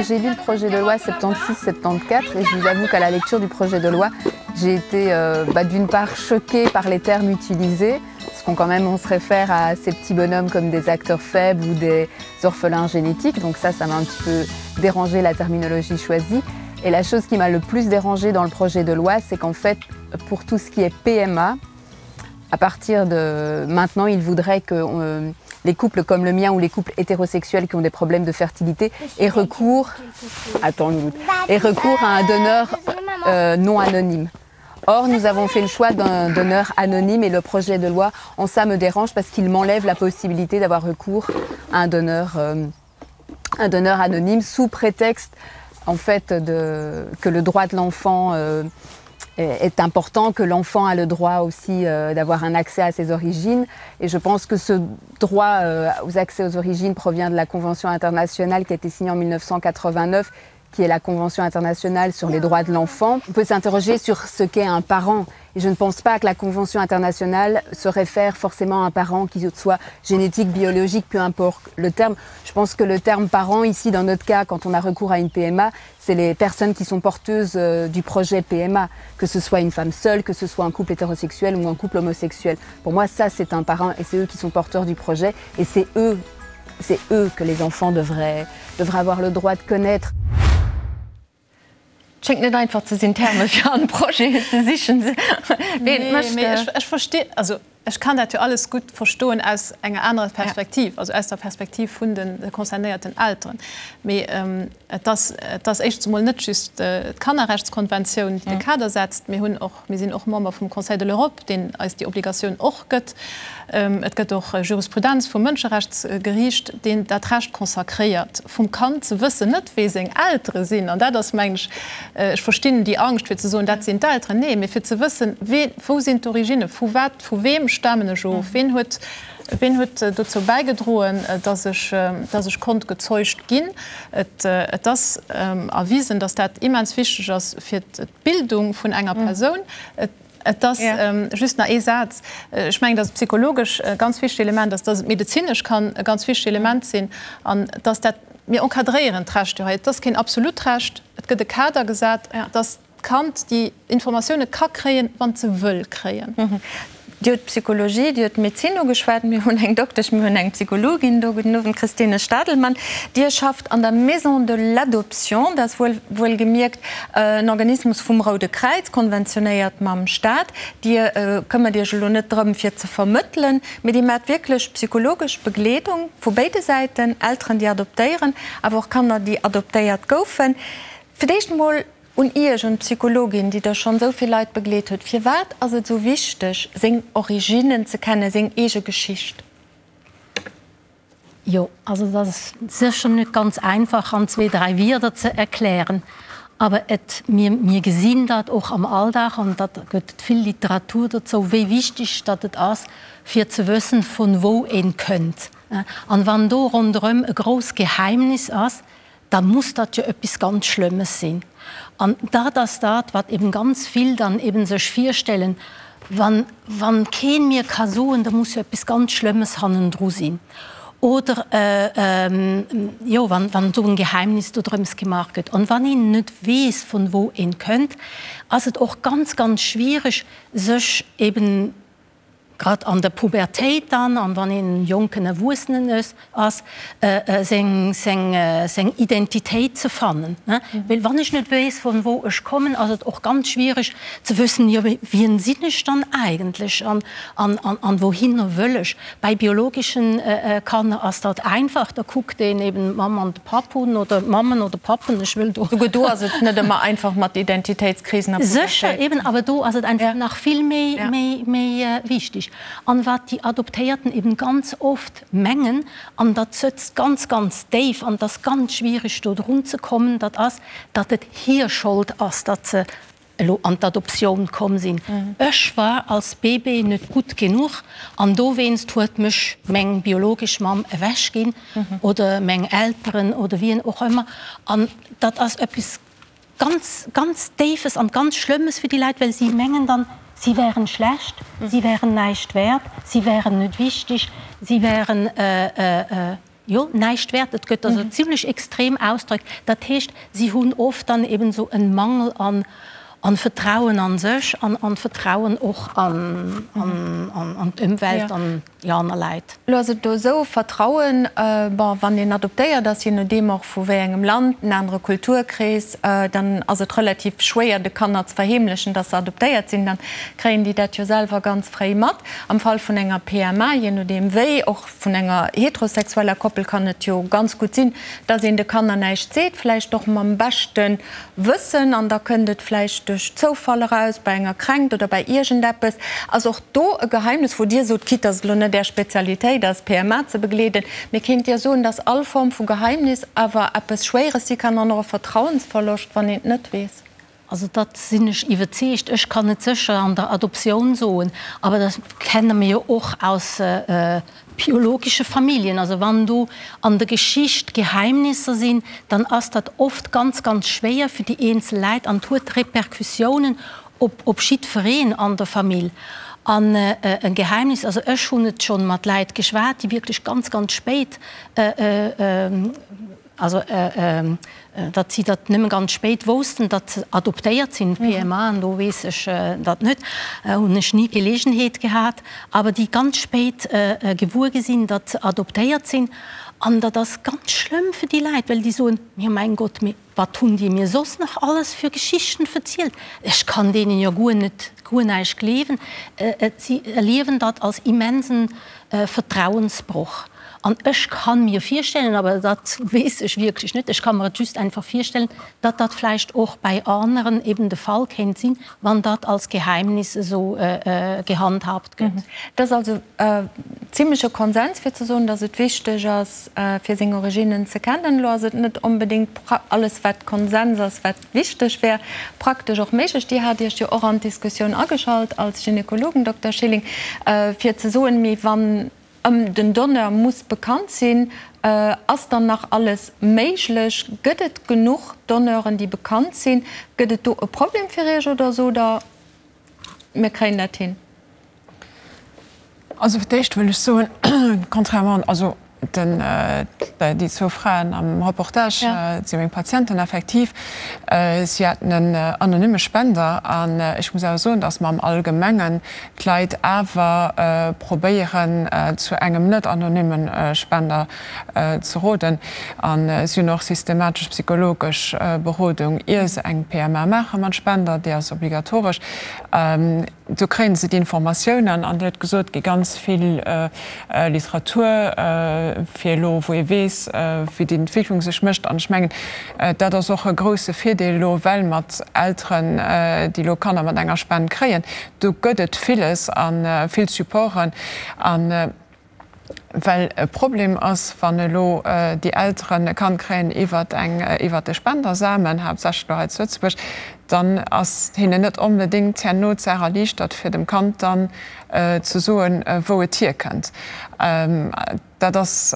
J'ai lu le projet de loi 76-74 et je vous avoue qu'à la lecture du projet de loi, j'ai été euh, d'une part choquée par les termes utilisés, parce qu'on quand même on se réfère à ces petits bonhommes comme des acteurs faibles ou des orphelins génétiques, donc ça, ça m'a un petit peu dérangé la terminologie choisie. Et la chose qui m'a le plus dérangée dans le projet de loi, c'est qu'en fait, pour tout ce qui est PMA, à partir de maintenant, il voudrait que euh, les couples comme le mien ou les couples hétérosexuels qui ont des problèmes de fertilité aient recours, attends une minute, aient recours à un donneur euh, non anonyme. Or, nous avons fait le choix d'un donneur anonyme et le projet de loi en ça me dérange parce qu'il m'enlève la possibilité d'avoir recours à un donneur, euh, un donneur anonyme sous prétexte en fait de, que le droit de l'enfant euh, est important, que l'enfant a le droit aussi euh, d'avoir un accès à ses origines. Et je pense que ce droit euh, aux accès aux origines provient de la Convention internationale qui a été signée en 1989 qui est la Convention internationale sur les droits de l'enfant. On peut s'interroger sur ce qu'est un parent. Et je ne pense pas que la Convention internationale se réfère forcément à un parent qui soit génétique, biologique, peu importe le terme. Je pense que le terme parent, ici, dans notre cas, quand on a recours à une PMA, c'est les personnes qui sont porteuses euh, du projet PMA, que ce soit une femme seule, que ce soit un couple hétérosexuel ou un couple homosexuel. Pour moi, ça, c'est un parent et c'est eux qui sont porteurs du projet et c'est eux, c'est eux que les enfants devraient, devraient avoir le droit de connaître. Schéngt net einfach ze sinn, Terme fir an Projeten ze sichen. Nee, mee ech, ech versti, also ech kann dat jo alles gutt verstoen aus enger anerer Perspektiv, also aus der Perspektiv vun de concernéierten Elteren. Mee et ass, et ass éischtens emol net just d'Kannerrechtskonventioun, déi de Kader setzt. Mir hunn och, mir sinn och Member vum Conseil de l'Europe, deen eis déi Obligatioun och gëtt. Et gëtt och Jurisprudenz vum Mënscherechtsgeriicht, deen dat Recht consacréiert vum Kand ze wëssen, net wee seng Eltere sinn, an dat ass, mengen ech, ech verstinn déi Angscht fir ze soen, dat sinn d'Elteren, nee, mee fir ze wëssen, wee, wou sinn d'Originne, vu wat, vu weem stamen ech of, ween huet, ween huet dozou bäigedroen, dass ech, dass ech konnt gezeugt ginn. Et, et ass erwisen, dass dat immens wichteg ass fir d'Bildung vun enger Persoun. Et. Et ass just nach ee Saz. Ech mengen, dass et psychologesch e ganz wichtegt Element ass, dass et medezinesch kann e ganz wichtegt Element sinn an dass dat, mir encadréieren d'Recht jo hei. Et ass keen absolut Recht, et gëtt e Kader gesat, dass d'Kand déi Informatioune ka kréien, wann et se wëll kréien. Dir hutt d'Psychologie, Dir hutt d'Medezin ugeschwat. Mir hunn eng Doktesch, mir hunn eng Psychologin do. Gudden Owend, Christine Stadelmann. Dir schafft an der Maison de l'Adoption, dat ass wuel wuelgemierkt en Organismus vum Roude Kräiz, konventionéiert mam Staat. Dir këmmert Iech elo net drëm, fir ze vermëttelen, mee Dir maacht wierklech psychologesch Begleedung vu béide Säiten, Elteren, déi adoptéieren, awer och Kanner, déi adoptéiert goufen. Fir d'éischt emol Un Iech, un d'Psychologin, déi der schonn esou vill Leit begleet huet, Firwat ass et esou wichteg, seng Originnen ze kennen, seng eege Geschicht? Jo, also dat ass sécher net ganz einfach an zwee, dräi Wierder ze erklären. Awer et, mir, mir gesinn dat och am Alldag an dat gëtt et vill Literatur dozou, wéi wichteg datt et ass, fir ze wëssen, vun wou een kënnt. An wann do ronderëm e grousst Geheimnis ass, da muss dat jo eppes ganz Schlëmmes sinn. An dat ass dat, wat eben ganz vill dann eben sech virstellen, wann, wann keen mir ka soen, da muss jo eppes ganz Schlëmmes hannendru sinn. Oder, jo, wann, wann esou en Geheimnis dodrëms gemaach gëtt. An wann een net weess, vun wou een kënnt, ass et och ganz, ganz schwiereg, sech eben. grad an der Pubertéit dann, an wann een jonken Erwuessenen ass, seng, seng, seng Identitéit ze fannen. Well wann ech net weess, vun wou ech kommen, ass et och ganz schwierig ze wëssen, jo wien sinn ech dann eigentlech an, an, an, an wouhinner wëll ech. Bei biologeschen Kanner ass dat einfach, da kuckt een eben d'Mamm an de Papp un oder d'Mammen oder Pappen, ech wëll do. Souguer do ass et net ëmmer einfach mat Identitéitskrisen a Pubertéit. Sécher, eben, awer do ass et einfach nach vill méi, méi, méi wichtig. An wat déi Adoptéierten eben ganz oft mengen, an dat sëtzt ganz, ganz déif an et ass ganz schwierig do drun ze kommen, dat ass, datt et hir Schold ass, datt se elo an d'Adoptioun komm sinn. Ech war als Bébé net gutt genuch an dowéinst huet mech meng biologesch Mamm ewech ginn oder meng Elteren oder wien och ëmmer. An dat ass eppes ganz, ganz Déifes an ganz Schlëmmes fir déi Leit, well si mengen dann, si wären schlecht, si wären näischt wäert, si wären net wichteg, si wären, jo, näischt wäert. Et gëtt also zimlech extrem Ausdrück. Dat heescht, si hunn oft dann eben esou en Mangel an an Vertrauen an sech an an Vertrauen och an an d'Ëmwelt an déi aner Läit. Elo ass et do esou, Vertrauen, bon, wann een adoptéiert ass, je nodeem och vu wéi engem Land, en anere Kulturkrees, dann ass et relativ schwéier de Kanner ze verheemlechen, dass se adoptéiert sinn. Dann kréien déi dat jo selwer ganz fréi mat. Am Fall vun enger PMA, je nodeem wéi, och vun enger heterosexueller Koppel kann et jo ganz gutt sinn, dass een de Kanner näischt seet, vläicht och mam beschte Wëssen, an da kënnt et vläicht duerch Zoufall eraus, bei enger Kränkt oder bei iergendeppes. Ass och do e Geheimnis, wou Dir sot, quitte dass et elo net Är Spezialitéit ass, PMA ze begleeden, mee kéint Dir soen, dass all Form vu Geheimnis awer eppes Schwéieres si kann an och e Vertrauensverloscht, wann een et net weess? Also dat sinn ech iwwerzeegt. Ech kann et sécher an der Adoptioun soen, awer dat kenne mir jo och aus biologesche Familljen. Also wann do an der Geschicht Geheimnisser sinn, dann ass dat oft ganz, ganz schwéier fir déi eenzel Läit an et huet Repercussiounen op op jiddwereen an der Famill. An e Geheimnis, also ech hunn et schonn mat Läit geschwat, déi wierklech ganz, ganz spéit, Also, datt si dat nëmme ganz spéit woussten, datt se adoptéiert sinn, PMA, an do weess ech dat net, hunn ech ni d'Geleegenheet gehat, awer déi ganz spéit gewuer gi sinn, datt se adoptéiert sinn. An dat ass ganz schlëmm fir déi Leit, well déi soen, Jo mäin Gott, mee wat hunn déi mir soss nach alles fir Geschichten verzielt? Ech kann deenen jo guer net, guer näischt gleewen. Si erliewen dat als immensen Vertrauensbroch. An ech ka mir virstellen, awer dat weess ech wierklech net, ech ka mer et just einfach virstellen, datt dat vläicht och bäi aneren eben de Fall kéint sinn, wann dat als Geheimnis esou gehandhabt gëtt. Et ass also zimleche Konsens fir ze soen, datt et wichteg ass, fir seng Originnen ze kennen. Elo ass et net onbedéngt alles, wat Konsens ass, wat wichteg wär, praktesch och méiglech. Dir hat Iech jo och an d'Diskussioun ageschalt als Gynekologen, Dokter Schilling, fir ze soen, mee wann ëm den Donneur muss bekannt sinn, ass dann nach alles méiglech? Gëtt et genuch Donneuren, déi bekannt sinn? Gëtt et do e Problem fir Iech oder sot Der, mir kréien dat hin? Also fir d'éischt wëll ech soen, contrairement, also den, déi zwou Fraen am Reportage si meng Patienten effektiv. Si haten en anonyme Spender an ech muss awer soen, datt mer am Allgemengen d'Leit awer probéieren zu engem net anonyme Spender ze roden. A si hunn och systematesch psychologesch Berodung ier se eng PMA maache mat Spender, déi ass obligatoresch. Do kréie se d'Informatiounen an Dir hutt gesot, et gi ganz vill Literatur fir elo, wou ee weess, wéi déi Entwécklung sech mécht. An ech mengen, dat ass och e grouse Virdeel elo, well mat Elteren, déi elo Kanner mat enger Spend kréien, do gëtt et villes a vill Supporten. A well e Problem ass, wann elo déi Elteren e Kand kréien iwwert eng, iwwert e Spendersamen, haaptsächlech elo hei zu Lëtzebuerg, dann ass hinnen net onbedéngt herno d'Saach erliichtert, fir dem Kand dann ze soen, wou et hierkënnt. Dat ass.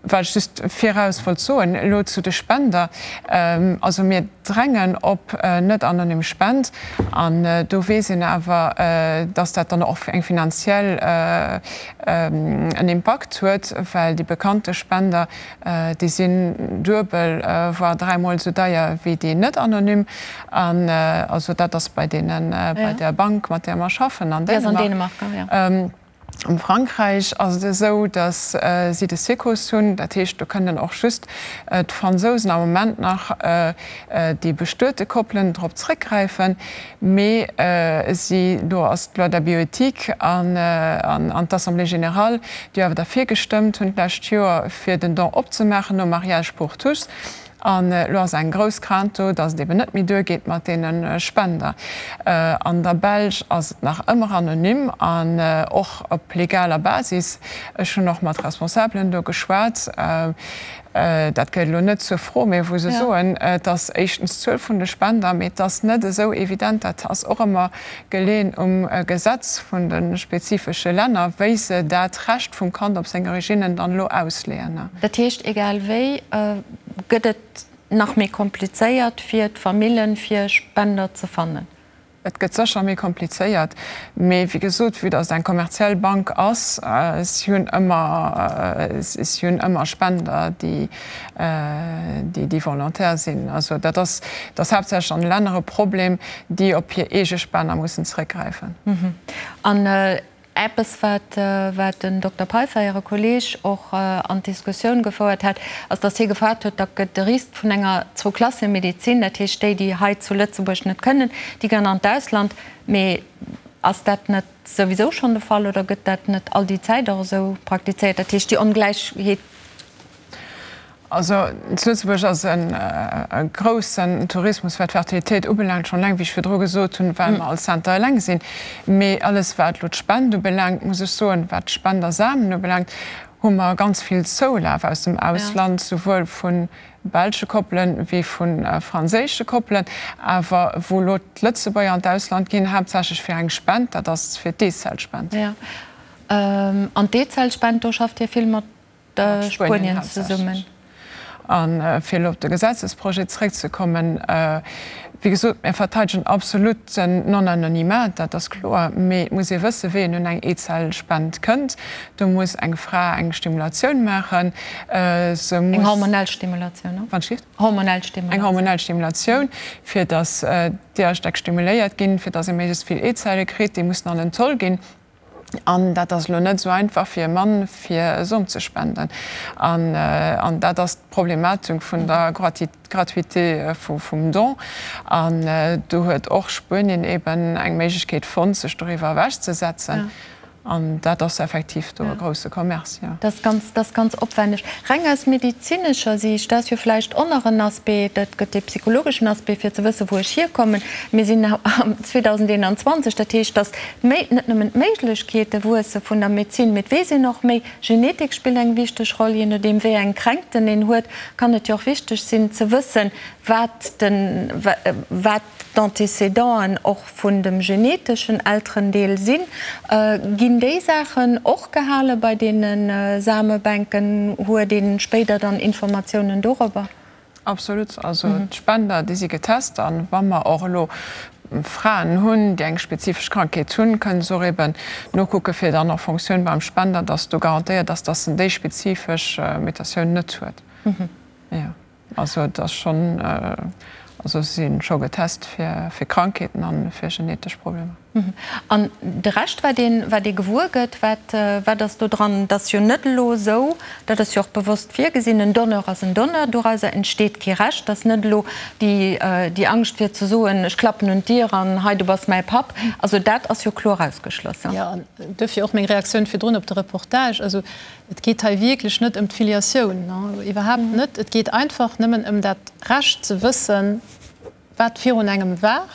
Wat ech just viraus wollt soen elo zu de Spender, also mir drängen op net anonym Spend an do weess een awer, dass dat dann och eng finanziell en Impakt huet, well déi bekannte Spender, déi sinn duebel, voire dräimol esou deier wéi déi net anonym. An also dat ass bei deenen, bei der Bank, mat där mer schaffen an Dänemark. Am Frankräich ass et esou, datt si de Secos hunn, dat heescht do kënnen och just d'Fransousen am Moment nach déi bestuete Koppelen drop zréckgräifen. Mee si, do ass d'Loi de bioéthique an d'Assemblée générale, déi awer derfir gestëmmt hunn d'lescht Joer, fir den Don opzemaachen nom Mariage pour tous. An elo ass eng grouss Crainte do, datt et eben net méi duergeet mat deene Spender. An der Belsch ass et nach ëmmer anonym an och op legaler Basis. Ech hunn och mat Responsabelen do geschwat. Dat gehéiert elo net zur Fro, mee wou se soen, et ass éischtens d'Zuel vun de Spender, mee et ass net esou evident, dat ass och ëmmer geleeën um Gesetz vun de spezifesche Länner, wéi se dat Recht vum Kand op seng Originnen dann elo ausleeën. Dat heescht, egal wéi gëtt et nach méi komplizéiert fir d'Famillen, fir Spender ze fannen? Et gëtt sécher méi komplizéiert, mee wéi gesot, vue datt et eng kommerziell Bank ass, si hunn ëmmer, si hunn ëmmer Spender, déi, déi volontaire sinn. Also dat ass, dat ass haaptsächlech an de Länner e Problem, déi op hir eege Spender mussen zeréckgräifen. An Eppes, wat wat den Dokter Peiffer, Äre Kolleeg, och an d'Diskussioun gefouert hat, ass, datt hie gefaart huet, da gëtt de Risk vun enger Zwou-Klasse-Medezin, dat heescht déi, déi hei zu Lëtzebuerg net kënnen, déi ginn an d'Ausland. Mee ass dat net souwisou schonn de Fall oder gëtt dat net all déi Zäit och esou praktizéiert? Dat heescht, déi Ongläichheet. Also zu Lëtzebuerg ass e groussen Tourismus, wat d'Fertilitéit ubelaangt, schonn eleng, wéi ech virdru gesot hunn, well mer als Center eleng sinn. Mee alles, wat elo d'Spend ubelaangt, muss ech soen, wat d'Spendersamen ubelaangt, hu mer ganz vill Zoulaf aus dem Ausland, souwuel vu belsche Koppelen wéi vu franséische Koppelen. Awer wou elo d'Lëtzebuerger an d'Ausland ginn, haaptsächlech fir eng Spend, dat ass fir d'Eezellspend. Jo, an d'Eezellspend, do schafft Dir vill mat Spuenien zesummen. A fir elo op de Gesetzesprojet zréckzekommen, Wéi gesot, mir verteidegen absolut den Non-anonymat, dat ass kloer. Mee et muss ee wëssen, wéi een un eng Eezellspend kënnt. Do muss eng Fra eng Stimulatioun maachen. Se muss. Eng hormonell Stimulatioun, ne? Wann ech. Hormonell Stimulatioun. Eng hormonell Stimulatioun, fir datt d'Eeërstäck stimuléiert ginn, fir datt ee méiglechst vill Eezelle kritt. Déi mussen an en Zoll ginn. An dat ass elo net esou einfach fir e Mann, fir e Som ze spenden. An dat ass d'Problematik vun der Gratuité vum Don. An do huet och Spuenien eben eng Méiglechkeet fonnt, sech doriwwer ewechzesetzen. An dat ass effektiv do e grousse Commerce, jo. Dat ass ganz, dat ass ganz opwänneg. Reng aus medezinescher Siicht, dat ass jo vläicht och nach en Aspect, et gëtt dee psychologeschen Aspect, fir ze wëssen, wou ech hierkommen. Mir sinn am 2021, dat heescht, datt Méi, net nëmmen d'Méiglechkeete wuesse vun der Medezin, mee et weess een och méi. Genetik spillt eng wichteg Roll. Jee nodeem wéi eng Kränkten een huet, kann et jo och wichteg sinn ze wëssen, wat den, wat d'Antécédenten och vun dem geneteschen Elterendeel sinn. Ginn déi Saachen och gehale bei deene Samebänken? Huet ee spéider dann Informatiounen dorobber? Absolut. Also d'Spender, déi si getest. A wa mer och elo Fraen hunn, déi eng spezifesch Krankheet hunn, kënnen se och eben nokucken, fir dann en Fonctioun beim Spender, dass do garantéiert ass, dass en déi spezifesch Mutatioun net huet. Jo, also et ass schonn, also se si scho getest fir Krankheeten a fir genetesch Problemer. An de Rescht, wat een, wat ee gewuer gëtt, wat, wat ass do dran? Et ass jo net elo esou, dat ass jo och bewosst virgesinn, en Donneur ass en Donneur, dorauser entsteet kee Recht. Et ass net elo déi, déi Angscht fir ze soen, ech klappen un d'Dier an hei, du bass mäi Papp. Also dat ass jo kloer ausgeschloss. Jo, an duerfir och meng Reaktioun virdrun op de Reportage. Also et geet hei wierklech net ëm d'Filiatioun, iwwerhaapt net. Et geet einfach nëmmen ëm dat Recht ze wëssen, wat virun engem war,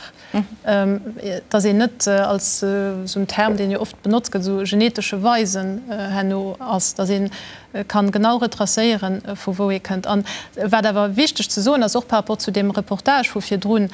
dass een net als esou en Term, deen jo oft benotzt gëtt, esou genetesche Weisen herno ass, dass ee kann genau retracéieren, vu wou ee kënnt. An wat awer wichteg ze soen ass, och par rapport zu deem Reportage vu virdrun,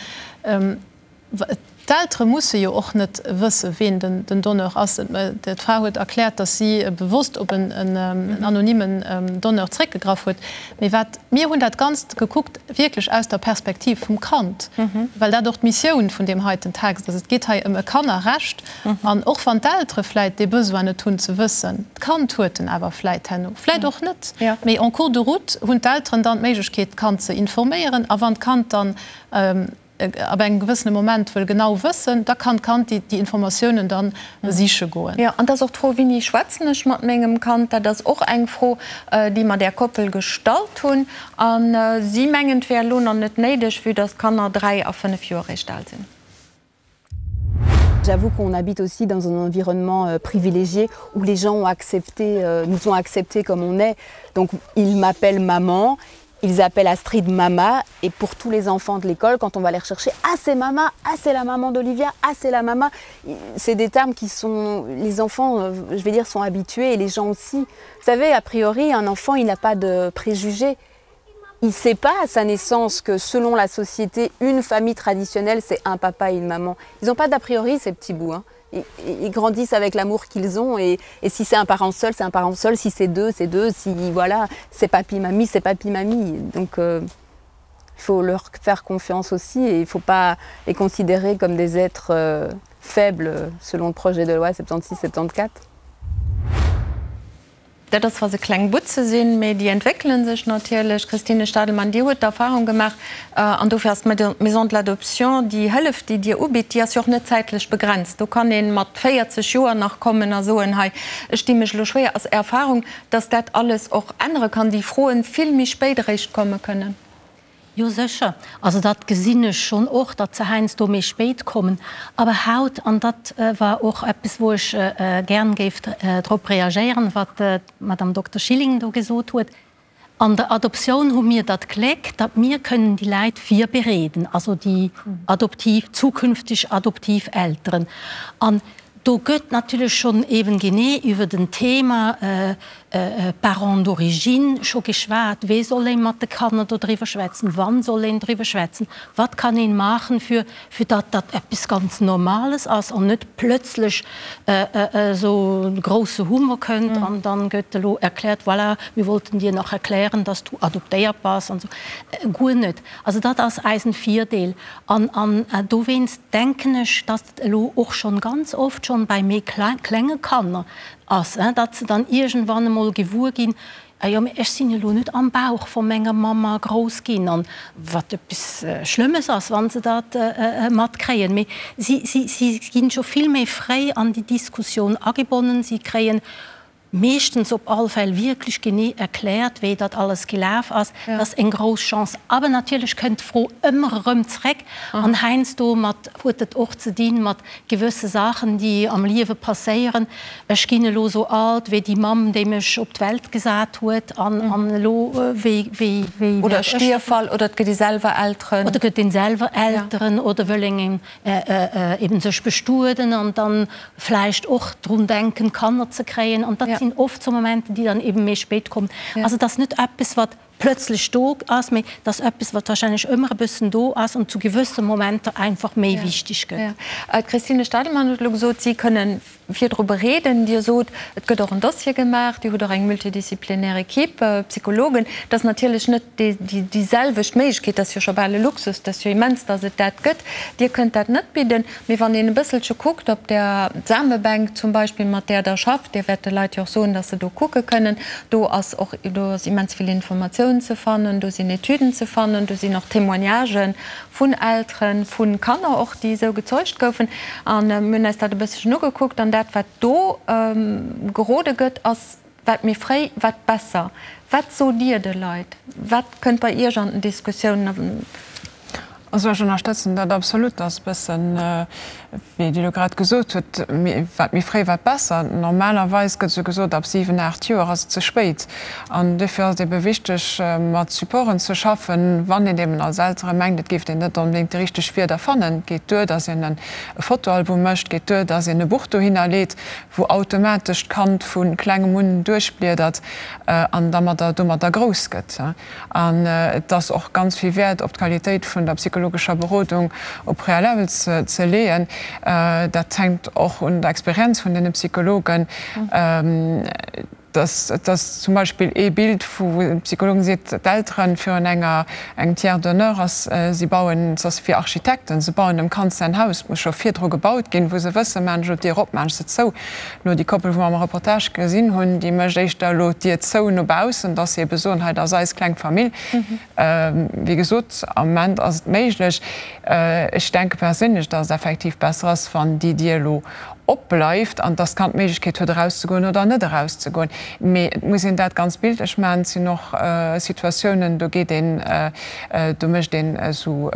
D'Eltere musse jo och net wësse ween den Donneur ass. D'Fra huet erkläert, datt si bewosst op en anonymen Donneur zréckgegraff huet. Mee wat, mir hunn dat Ganzt gekuckt wierklech aus der Perspektiv vum Kand, well dat och d'Missioun vun deem heiten Text ass. Et geet hei ëm e Kannerrecht. An och wann d'Eltere vläit dee Besoin net hunn ze wëssen, d'Kand huet en awer vläit herno, vläit och net, mee en cours de route hunn d'Elteren dann d'Méiglechkeet d'Kand ze informéieren. A wann d'Kand dann ab engem gewëssene Moment wëll genau wëssen, da kann d'Kand déi Informatiounen dann siche goen. Jo, an et ass och d'Fro, Wéini schwätzen ech mat mengem Kand? Dat ass och eng Fro, déi mer där Koppel gestallt hunn. A si mengen, et wär elo nach net néideg, vue dass d'Kanner 3 a 5 Joer eréischt al sinn. J'avoue qu'on habite aussi dans un environnement euh, privilégié où les gens ont accepté, euh, nous ont accepté comme on est. Donc ils m'appellent maman, ils appellent Astrid mama et pour tous les enfants de l'école quand on va les rechercher ah c'est mama ah c'est la maman d'Olivia ah c'est la mama c'est des termes qui sont les enfants euh, je vais dire sont habitués et les gens aussi vous savez a priori un enfant il n'a pas de préjugés il sait pas à sa naissance que selon la société une famille traditionnelle c'est un papa et une maman ils n'ont pas d'a priori ces petits bouts hein. ils, ils grandissent avec l'amour qu'ils ont et, et si c'est un parent seul c'est un parent seul si c'est deux c'est deux si voilà c'est papy mamie c'est papy mamie donc euh, il faut leur faire confiance aussi et il faut pas les considérer comme des êtres euh, faibles selon le projet de loi 76 74 Dat ass, wa se kleng Butze sinn, mee déi entwéckele sech natierlech. Christine Stadelmann, Dir hutt d'Erfahrung gemaach, an dofir ass d'Maison de l'adoption, déi Hëllef, déi Dir ubitt, déi ass jo och net zäitlech begrenzt. Do kann ee mat 40 Joer nach kommen a soen, hei, ech di mech elo schwéier. Ass Är Erfahrung, datt dat alles och ännere kann, déi Froen vill méi spéit eréischt komme kënnen? Jo sécher, also dat gesinn ech schonn och, datt se heiansdo méi spéit kommen. Awer haut, an dat war och eppes wou ech gern géif drop reagéieren, wat d'Madame Dokter Schilling do gesot huet, an der Adoptioun hu mir dat Gléck, datt mir kënnen déi Läit virbereeden, also déi adoptiv, zukünfteg adoptiv Elteren. An do gëtt natierlech schonn eben genee iwwer den Thema Parents d'origine scho geschwat, wéi soll ee mat de Kanner do driwwer schwätzen, wann soll een driwwer schwätzen, wat kann een maachen, fir fir datt dat eppes ganz Normales ass an net plötzlech esou e grousse Hummer kënnt an dann gëtt elo erkläert, voilà, wir wollten dir nach erklären, dass du adoptéiert bass an esou. Guer net. Also dat ass eisen Virdeel an an dowéinst denken ech, datt et elo och schonn ganz oft schonn bei méi klenge Kanner ass, datt se dann iergendwann emol gewuer ginn, Ah jo, mee ech sinn elo net am Bauch vu menger Mamma grouss ginn, an wat eppes Schlëmmes ass, wa se dat matkréien. Mee si, si, si ginn scho vill méi fréi an déi Diskussioun agebonnen. Si kréien meeschtens op all Fäll wierklech genee erkläert, wéi dat alles gelaf ass. Dat ass eng grouss Chance. Awer natierlech kënnt d'Fro ëmmer erëm zréck an heiansdo mat huet et och ze dinn mat gewësse Saachen, déi am Liewe passéieren. Ech ginn elo esou alt wéi déi Mamm, déi mech op d'Welt gesat huet, an an elo wéi, wéi, wéi Oder e Stierfall, oder et gëtt ee selwer Elteren. Oder gëtt een selwer Elteren, oder wëll een eben sech bestueden an dann vläicht och drun denken, Kanner ze kréien. An dat sinn oft sou Momenter, déi dann eben méi spéit kommen. Also et ass net eppes, wat plötzlech do ass, mee et ass eppes, wat wahrscheinlech ëmmer e bëssen do ass an zu gewësse Momenter einfach méi wichteg gëtt. D'Christine Stadelmann huet elo gesot, si kënnen virdru bereeden. Dir sot, et gëtt och en Dossier gemaach, Dir hutt och eng multidisziplinär Equipe, Psychologen. Dat ass natierlech net déi selwecht Méiglechkeet, dat ass jo scho bal e Luxus, dat ass jo immens, datt et dat gëtt. Dir kënnt dat net bidden. Mee wann een e bësselche kuckt op der Samebänk zum Beispill, mat där Der schafft, Dir wäert de Leit jo och soen, dass se do kucke kënnen, do ass och, do ass immens vill Informatioun ze fannen, do sinn Etüden ze fannen, do sinn och Témoignagen vun Elteren, vu Kanner och, déi esou gezeugt goufen. A mir hunn eis dat e bësselchen ugekuckt an dat, wat do gerode gëtt, ass, Wat méi fréi, wat besser. Wat sot Dir de Leit? Wat kënnt bei Iech an den Diskussiounen? Also ech ënnerstëtzen dat absolut. Dat ass e bëssen, wéi Dir elo grad gesot hutt, wat méi fréi, wat besser. Normalerweis gëtt esou gesot, ab 7, 8 Joer ass et ze spéit. An duerfir ass et ebe wichteg, mat Supporten ze schaffen, wann een eben als Eltere mengt, et géif een net onbedéngt déi richteg Wierder fannen. Et geet duer, datt een e Fotoalbum mécht, et geet duer, datt een e Buch dohinner leet, wou automatesch d'Kand vu klengem un duerchbliedert an dermadder domadder grouss gëtt. An et ass och ganz vill Wäert op d'Qualitéit vun der psychologescher. psychologescher Berodung au préalable ze leeën. Dat hänkt och un der Experienz vun deene Psychologen. Et ass zum Beispill ee Bild, wou de Psychologen seet, d'Elteren virun enger engem Tiers d'honneur ass, si bauen, et ass fir Architekten, se bauen dem Kand säin Haus, et muss scho virdru gebaut ginn, wou se wëssen, maachen ech elo d'Dier op, maachen ech se zou. Elo déi Koppel, wou mer am Reportage gesinn hunn, déi mécht éischter elo d'Dier zou no baussen, dass se ebe soen, hei, dat ass eis kleng Famill. Wéi gesot, am Moment ass et méiglech. Ech denke perséinlech, dass et effektiv besser ass, wann déi Dier elo opbleift an dass d'Kand d'Méiglechkeet huet, erauszegoen oder net erauszegoen. Mee et muss een dat ganz bildlech maachen. Et sinn och Situatiounen, do geet een, do mécht een esou,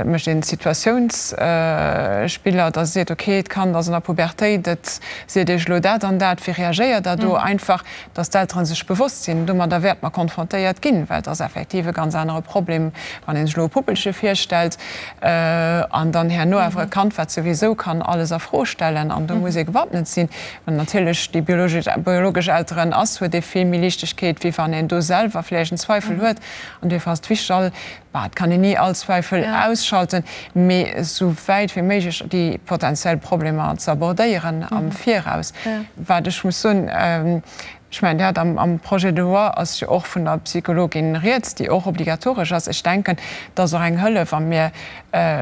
mécht een Situatiounsspiller, dass e seet, okay, d'Kand ass an der Pubertéit, et seet Iech elo dat an dat, wéi reagéiert Der do? Einfach, dass d'Eltere sech bewosst sinn, domadder wäerte mer konfrontéiert ginn, well et ass effektiv e ganz anere Problem, wann ee sech elo e Puppelche virstellt an dann herno awer e Kand, wat souwisou kann alles a Fro stellen an do muss ee gewappnet sinn. Wann natierlech déi biologesch Elteren ass, huet ee vill méi Liichtegkeet, wéi wann een do selwer vläicht en Zweifel huet. An duerfir ass et wichteg, all Bah, et kann een ni all Zweifel ausschalten, mee esou wäit wéi méiglech déi potenziell Problemer ze abordéieren am Viraus. Wat ech muss soen, ech mengen, Dir hat am Projet de loi ass jo och vun der Psychologin rieds, déi och obligatoresch ass. Ech denken, dat ass och eng Hëllef a mir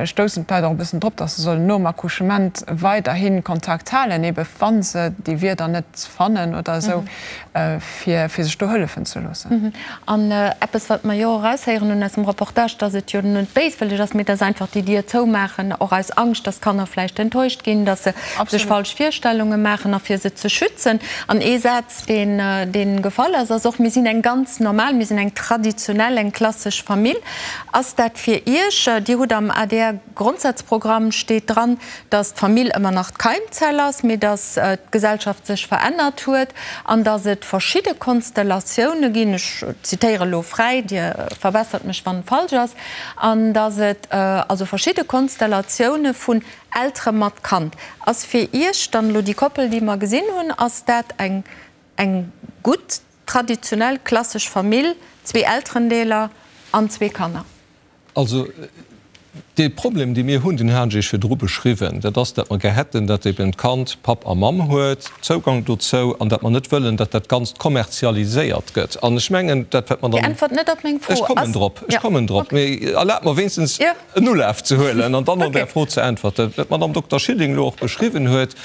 stoussen d'Leit och e bëssen drop, dass se sollen nom Accouchement weiderhi Kontakt halen, ebe wa se déi Wierder net fannen oder esou. fir sech do hëllefen ze loossen. An eppes, wat mer jo och eraushéieren hunn aus dem Reportage, dass et jo net béiswëlleg ass, mee dass einfach déi Dier zoumaachen, och aus Angscht, dass d'Kanner vläicht enttäuscht ginn, dass se sech falsch Virstellunge maachen a fir se ze schützen. An ee Saz, deen, dee gefall ass, ass och, Mir sinn eng ganz normal, mir sinn eng traditionell, eng klassesch Famill. Ass dat fir Iech, Dir hutt am adr Grondsazprogramm steet dran, dass d'Famill ëmmer nach d'Keimzell ass, mee dass d'Gesellschaft sech verännert huet an dass et verschidde Konstellatioune ginn, ech zitéiere elo fräi, Dir verbessert mech wann et falsch ass, an dass et also verschidde Konstellatioune vun Eltere mat Kand. Ass fir Iech dann elo déi Koppel, déi mer gesinn hunn, ass dat eng eng gutt traditionell klassesch Famill, zwee Elterendeeler an zwee Kanner? Also, dee Problem, dee mir hunn, deen hat ech Iech virdru beschriwwen, dat ass, datt mer gär hätten, datt eben d'Kand Papp a Mamm huet, Zougang dozou, an datt mer net wëllen, datt dat Ganzt kommerzialiséiert gëtt. An ech mengen, dat, wat d'Madame. Dir äntwert net op meng Fro. Ech kommen drop, ech kommen drop. Mee erlaabt mer wéinstens en Ulaf ze huelen an dann op Är Fro ze äntwerten. Wat d'Madame Dokter Schilling elo och beschriwwen huet,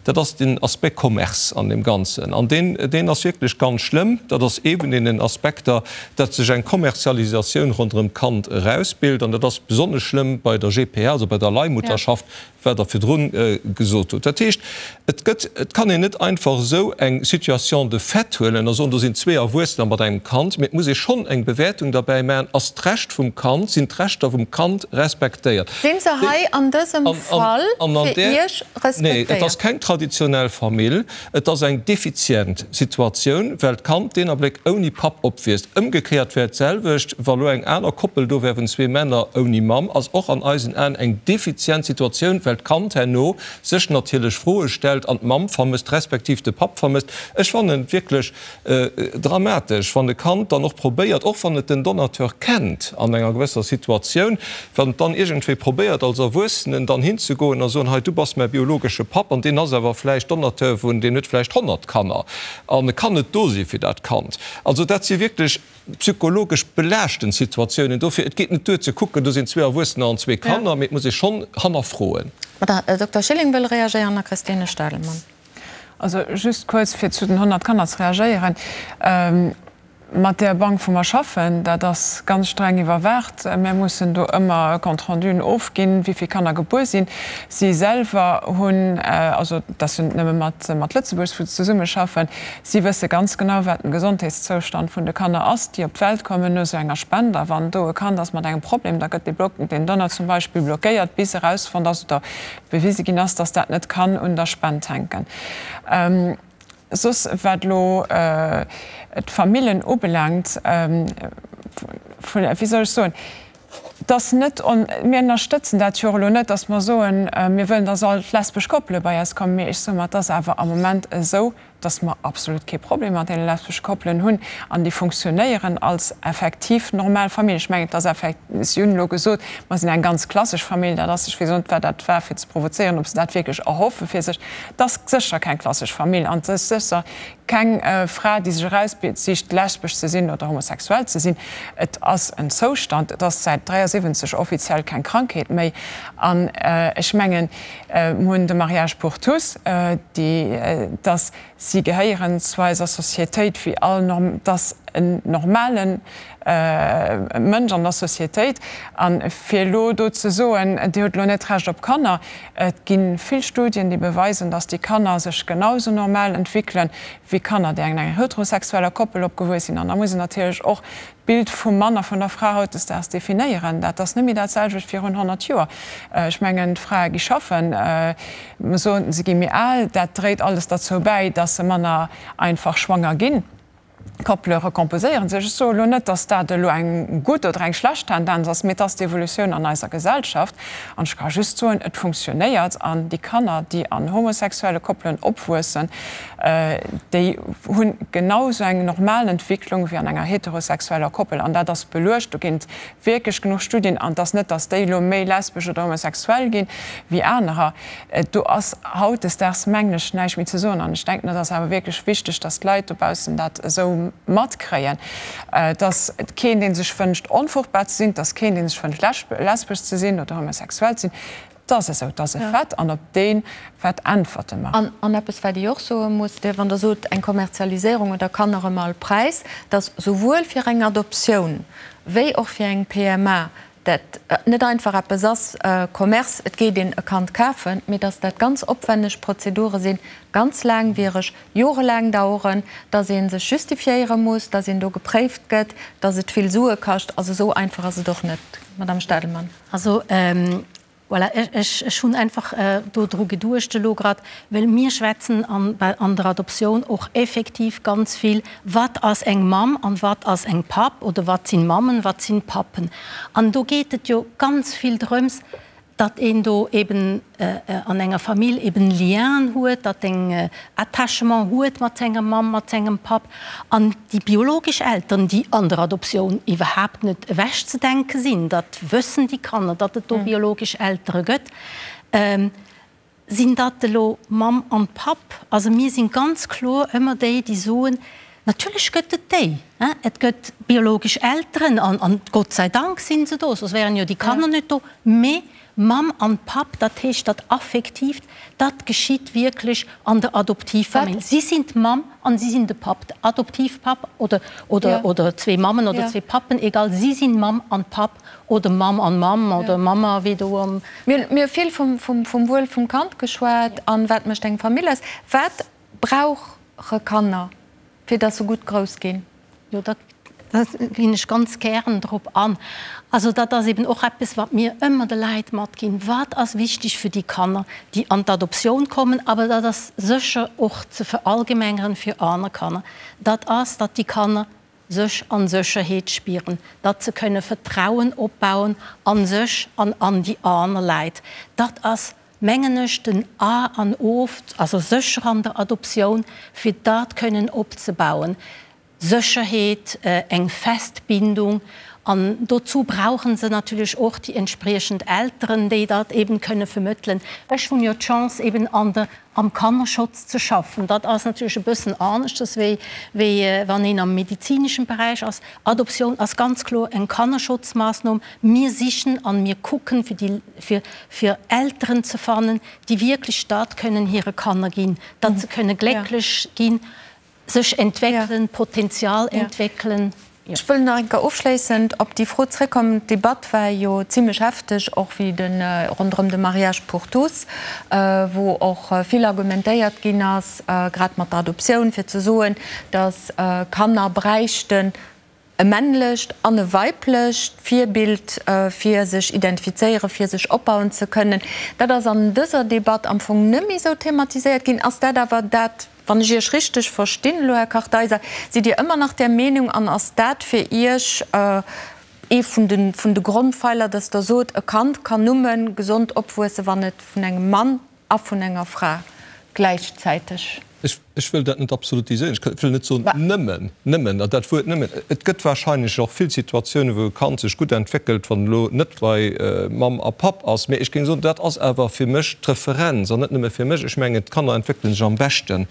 Dat ass den Aspect Commerce an deem Ganzen. An deen, deen ass wierklech ganz schlëmm. Dat ass ee vun deenen Aspekter, datt sech eng Kommerzialisatioun ronderëm d'Kand erausbilt. An dat ass besonnesch schlëmm bei der GPA, also bei der Leihmutterschaft, wat Der virdrun gesot hutt. Dat heescht, et gëtt, et kann een net einfach esou eng Situation de fait huelen a soen, do sinn zwee Erwuessener mat engem Kand, mee et muss ee schonn eng Bewäertung derbäi maachen, Ass d'Recht vum Kand, sinn d'Rechter vum Kand respektéiert? Sinn se hei an dësem Fall fir Iech respektéiert? Nee, et ass keng traditionell Famill. Et ass eng defizient Situatioun, well d'Kand deen Abléck ouni Papp opwiisst. Ëmgekéiert wär et d'selwecht, wa lo eng aner Koppel do wär vun zwee Männer ouni Mamm, ass och an eisen Aen eng defizient Situatioun, well d'Kand herno sech natierlech Froe stellt an d'Mamm vermësst, respektiv de Papp vermësst. Ech fannen et wierklech Dramatesch, wann e Kand dann och probéiert, och wann et den Donateur kennt an enger gewësser Situatioun, wann et dann iergendwéi probéiert als Erwuessenen dann hinzegoen a soen, hei du bass mäi biologesche Papp an deen ass awer vläicht Donateur vun, deen huet vläicht 100 Kanner an e kann net do si fir dat Kand. Also dat si wierklech psychologesch belaaschtend Situatiounen. Dofir, et geet net duer ze kucken, do sinn zwee Erwuessener an zwee Kanner, mee et muss ee schonn hannerfroen. Madame Dokter Schilling wëll reagéieren a Christine Stadelmann. Also just kuerz, fir zu den 100 Kanner ze reagéieren. Mat där Bank, wou mer schaffen, dat ass ganz streng iwwerwaacht. Mir mussen do ëmmer e Compte renduen ofginn, wéi vill Kanner gebuer sinn. Si selwer hunn, also dat ass jo net nëmme mat Lëtzebuerg, wou se zesummeschaffen, si wësse ganz genau, wat den Gesondheetszoustand vun de Kanner ass, déi op d'Welt kommen no esou enger Spend. A wann do e Kand ass mat engem Problem, da gëtt dee Block, deen Donner zum Beispill blockéiert, bis erausfonnt ass oder bewise ginn ass, dass dat net kann un der Spend hänken. Soss, wat elo d'Famillen ubelaangt, wéi soll ech soen, et ass net, mir ënnerstëtzen dat jo och elo net, dass mer soen, mir wëllen, dass all d'lesbesch Koppele bei eis kommen, mee ech soe mer, et ass awer am Moment esou. Dass mer absolut kee Problem mat deene lesbesche Koppelen hunn an déi funktionéieren als effektiv normal Famill. Ech mengen, et ass effekt, si hunn elo gesot, mer sinn eng ganz klassesch Famill, dat ass, ech weess och net, wat dat war fir ze provozéieren, ob se dat wierklech erhoffe fir sech. Et ass sécher keng klassesch Famill an et ass sécher keng Fra, déi sech eraussicht, lesbesch ze sinn oder homosexuell ze sinn. Et ass en Zoustand, et ass säit 73 offiziell keng Krankheet méi an ech mengen, Mir hunn de Mariage pour tous, déi, dass si gehéieren zu eiser Sociétéit wéi all, dass en normale Mënsch an der Sociétéit. A fir elo do ze soen, Dir hutt elo net d'Recht op Kanner, et gi vill Studien, déi beweisen, dass déi Kanner sech genau sou normal entwéckelen, wéi Kanner, déi an enger heterosexueller Koppel opgewuess sinn. An da muss een natierlech och d'Bild vum Mann a vun der Fra hautdesdaags definéieren. Dat ass net méi dat selwecht virun 100 Joer. Ech mengen, d'Frae gi schaffen, mer soen, se gi méi al. Dat dréit alles derzou bäi, dass se manner einfach schwanger ginn. D'Koppele recomposéiere sech. Ech soe elo net, dass dat elo eng gutt oder eng schlecht Tendenz ass, mee et ass d'Evolutioun an eiser Gesellschaft. An ech ka just soen, et funktionéiert. An déi Kanner, déi an homosexuelle Koppelen opwuessen, déi hu genau esou eng normal Entwicklung wéi an enger heterosexueller Koppel. An dat ass beluecht, do ginn et wierklech genuch Studien. An et ass net, datt déi elo méi lesbesch oder homosexuell ginn wéi anerer. Do ass hautdesdaags, mengen ech, näischt méi ze soen. An ech denken, et ass awer wierklech wichteg, datt d'Leit dobaussen dat esou matkréien. Et ass keen, dee sech wënscht, onfruchtbar ze sinn. Et ass keen, dee sech wënscht, lesbesch ze sinn oder homosexuell ze sinn. Et ass esou, et ass e Fait an op dee Fait äntwerte mer. An eppes, wat ee och soe muss, wann Der sot, eng Kommerzialiséierung oder Kanner ëm all Präis, dass souwuel fir eng Adoptioun wéi och fir eng PMA dat net einfach eppes ass, Commerce, et geet een e Kand kafen, mee dass dat ganz opwenneg Prozedure sinn, ganz laangwiereg, jorelaang daueren, dass ee sech justifiéiere muss, dass een do gepréift gëtt, dass et vill Sue kascht. Also esou einfach ass et och net, Madame Stadelmann. Also voilà, ech hunn einfach do dru geduecht elo grad, well mir schwätzen an der Adoptioun och effektiv ganz vill, wat ass eng Mamm an wat ass eng Papp oder wat sinn Mammen, wat sinn Pappen. An do geet et jo ganz vill drëms, datt een do eben an enger Famill eben Lienen huet, datt een Attachement huet mat senger Mamm, mat sengem Papp. An déi biologesch Eltern, déi an der Adoptioun iwwerhaapt net ewechzedenke sinn, dat wëssen déi Kanner, datt et do biologesch Eltere gëtt, sinn dat elo Mamm an Papp? Also mir sinn ganz kloer ëmmer déi, déi soen, natierlech gëtt et déi, et gëtt biologesch Elteren an Gott sei Dank sinn se do, soss wären jo déi Kanner net do, mee Mamm an Papp, dat heescht dat Affektiivt, dat geschitt wierklech an der Adoptivfamill. Si sinn d'Mamm an si sinn de Papp, de Adoptivpapp oder, oder, oder zwee Mammen oder zwee Pappen, egal, si sinn Mamm an Papp oder Mamm an Mamm oder Mamma, wéi do am. Mir hu vill vum, vum, vum Wuel vum Kand geschwat an wat mécht eng Famill aus. Wat brauche Kanner, fir dass se gutt grouss ginn? Jo, dat ginn ech ganz gären drop an. Also dat ass eben och eppes, wat mir ëmmer de Leit matginn, Wat ass wichteg fir déi Kanner, déi an d'Adoptioun kommen, awer dat ass sécher och ze verallgemengeren fir aner Kanner, dat ass, datt déi Kanner sech a Sécherheet spieren, datt se kënne Vertrauen opbauen a sech an an déi aner Leit. Dat ass, mengen ech, den A an O, also sécher an der Adoptioun, fir dat kënnen opzebauen. Sécherheet, eng fest Bindung an dozou brauche se natierlech och déi entspriechend Elteren, déi dat eben kënne vermëttelen. Ech hunn jo d'Chance eben an der, am Kannerschutz ze schaffen. Dat ass natierlech e bëssen aneschters wéi, wéi wann een am medizineschen Beräich ass. Adoptioun ass ganz kloer eng Kannerschutzmaßnohm. Mir sichen an mir kucken fir déi, fir, fir Elteren ze fannen, déi wierklech dat kënnen hire Kanner ginn, datt se kënne glécklech ginn. Sech entwéckelen, Potenzial entwéckelen. Ech wëll nach eng Kéier ofschléissend op déi Fro zréckkommen. D'Debatt war jo zimlech hefteg, och wéi de ronderëm de Mariage pour tous, wou och vill argumentéiert ginn ass, grad mat der Adoptioun, fir ze soen, datt Kanner bräichten e männlecht an e weiblecht Virbild, fir sech identifizéieren, fir sech opbauen ze kënnen. Dat ass an dëser Debatt am Fong net méi esou thematiséiert ginn. Ass dat awer dat, wann ech Iech richteg verstinn elo, Här Kartheiser, sidd Dir ëmmer nach där Meenung an ass dat fir Iech ee vun de vun de Grondpfeiler, dass Der sot, e Kand kann nëmme gesond opwuessen, wann et vun engem Mann a vun enger Fra gläichzäiteg. Ech. Ech wëll dat net absolutiséieren. Ech wëll net soen nëmmen, nëmmen, an dat Wuert nëmmen, et gëtt wahrscheinlech och vill Situatiounen, wou e Kand sech gutt entwéckelt, wann elo net bei Mamm a Papp ass. Mee ech géing soen, dat ass awer fir mech d'Referenz, an net nëmme fir mech. Ech mengen, d'Kanner entwéckele sech am beschten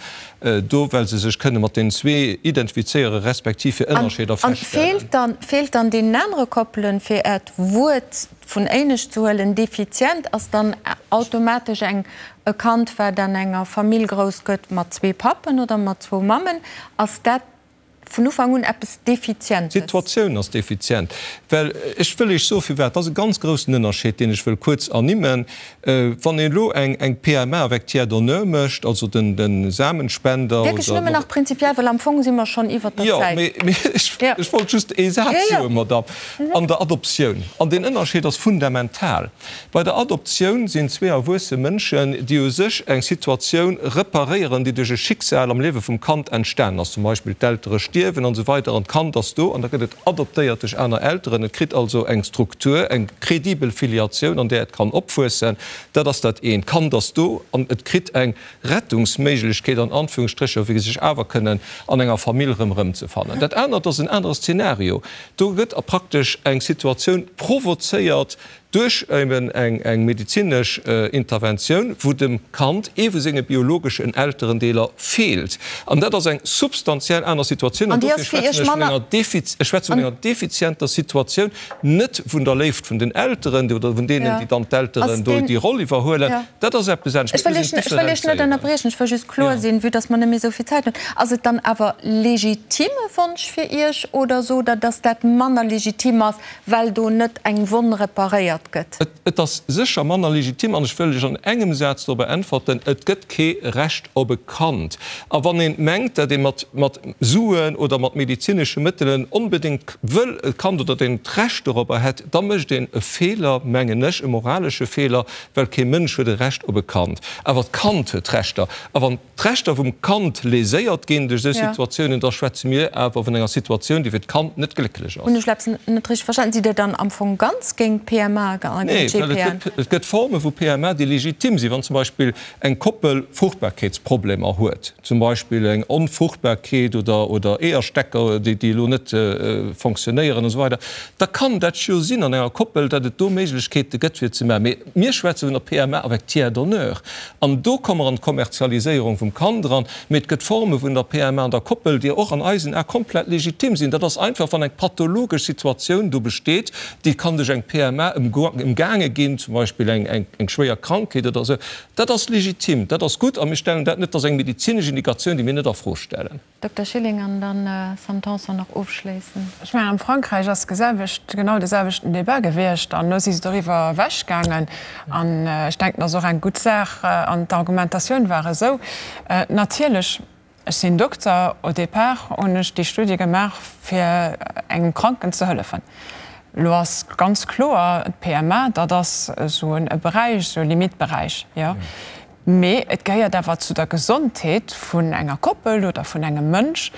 do, well se sech kënne mat deenen zwee identifizéieren, respektiv fir Ënnerscheeder feststellen. An feelt dann deenen anere Koppelen, fir Äert Wuert vun éinescht ze huelen, defizient ass dann automatesch eng e Kand, wat an enger Famill grouss gëtt mat zwee Pappen oder mat zwou Mammen, ass dat vun Ufank un eppes Defizientes? D'Situatioun ass defizient, well ech wëll Iech soe firwat. Dat ass e ganz groussen Ënnerscheed, deen ech wëll kuerz ernimmen. Wann een elo eng PMA avec tiers donneur mécht, also de Samenspender oder. Wierklech nëmmen nach prinzipiell, well am Fong si mer schonn iwwert der Zäit. Jo, mee ech wollt just ee Saz soen, Madamm. An der Adoptioun. An deen Ënnerscheed ass fundamental. Bei der Adoptioun sinn zwee erwuesse Mënschen, déi u sech eng Situatioun reparéieren, déi duerch e Schicksal am Liewe vum Kand entstanen ass, zum Beispill d'Eltere stierwen an esou weider an d'Kand ass do an da gëtt et adoptéiert duerch aner Elteren. Et kritt also eng Struktur, eng credibel Filiatioun, an där et kann opwuessen. Dat ass dat eent. D'Kand ass do an et kritt eng Rettungsméiglechkeet an Anführungsstrécher, fir sech awer kënnen an enger Famill erëm erëmzefannen. Dat anert ass en anere Szenario. Do gëtt praktesch eng Situatioun provozéiert duerch eben eng medezinesch Interventioun, wou dem Kand ee vu senge biologeschen Elterendeeler feelt. An dat ass eng substantiell aner Situatioun. An dofir schwätzen ech vun enger ech schwätze vun enger defizienter Situatioun, net vun der Léift vun den Elteren oder vun deenen, déi dann d'Elteren do déi Roll iwwerhuelen. Dat ass eppes anescht. Ech wëll Iech net ënnerbriechen, ech wëll just kloer sinn, vue dass mer net méi esou vill Zäit hunn. Ass et dann awer legitime Wonsch fir Iech oder sot Der, dass dat manner legitim ass, well do net eng Wonn reparéiert gëtt? Et ass sécher manner legitim an ech wëll lech an engem Saz dorobber äntwerten, Et gëtt kee Recht op e Kand. A wann ee mengt, dat ee mat mat Suen oder mat medezinesche Mëttelen onbedéngt wëll e Kand oder dat een d'Recht dorobber hätt, da mécht een e Feeler, mengen ech, e moralesche Feeler, well kee Mënsch huet e Recht op e Kand, awer d'Kand huet Rechter. A wann d'Rechter vum Kand léséiert ginn duerch esou Situatiounen, da schwätze mir awer vun enger Situatioun, déi fir d'Kand net glécklech ass. Hunn ech eppes net richteg verstanen? Sidd Dir dann am Fong ganz géint d'PMA a géint d'GPN? Nee, well et gëtt Forme vu PMA, déi legitim sinn. Wann zum Beispill eng Koppel Fruchtbarkeetsproblemer huet, zum Beispill eng Onfruchtbarkeet oder Eeërstecker, déi elo net fonctionnéieren an esou weider, da kann dat jo sinn an enger Koppel, datt et do Méiglechkeete gëtt fir et ze maachen. Mee mir schwätze vun der PMA avec tiers donneur an do komme mer an d'Kommerzialiséierung vum Kand eran. Mee et gëtt Forme vun der PMA an der Koppel, déi och an eisen Ae komplett legitim sinn. Dat ass einfach, wann eng pathologesch Situatioun do besteet, déi kann duerch eng PMA ëmgaange ginn, zum Beispill eng schwéier Krankheet oder esou. Dat ass legitim, dat ass gutt a mir stellen dat net, dat ass eng medezinesch Indikatioun, déi mir net a Fro stellen. Dokter Schilling an dann Sam Tanson nach ofschléissen. Ech mengen, am Frankräich ass geselwecht, genau de selwechten Débat gewiescht an elo si se doriwwer ewechgaangen. An ech denken, dat ass och eng gutt Saach. An d'Argumentatioun war esou, natierlech, ech sinn Dokter, au départ hunn ech déi Studie gemaach, fir engem Kranken ze hëllefen. Elo ass ganz kloer, d'PMA, dat ass esou e Beräich, esou e Limitberäich, jo. Mee et gehéiert awer zu der Gesondheet vun enger Koppel oder vun engem Mënsch,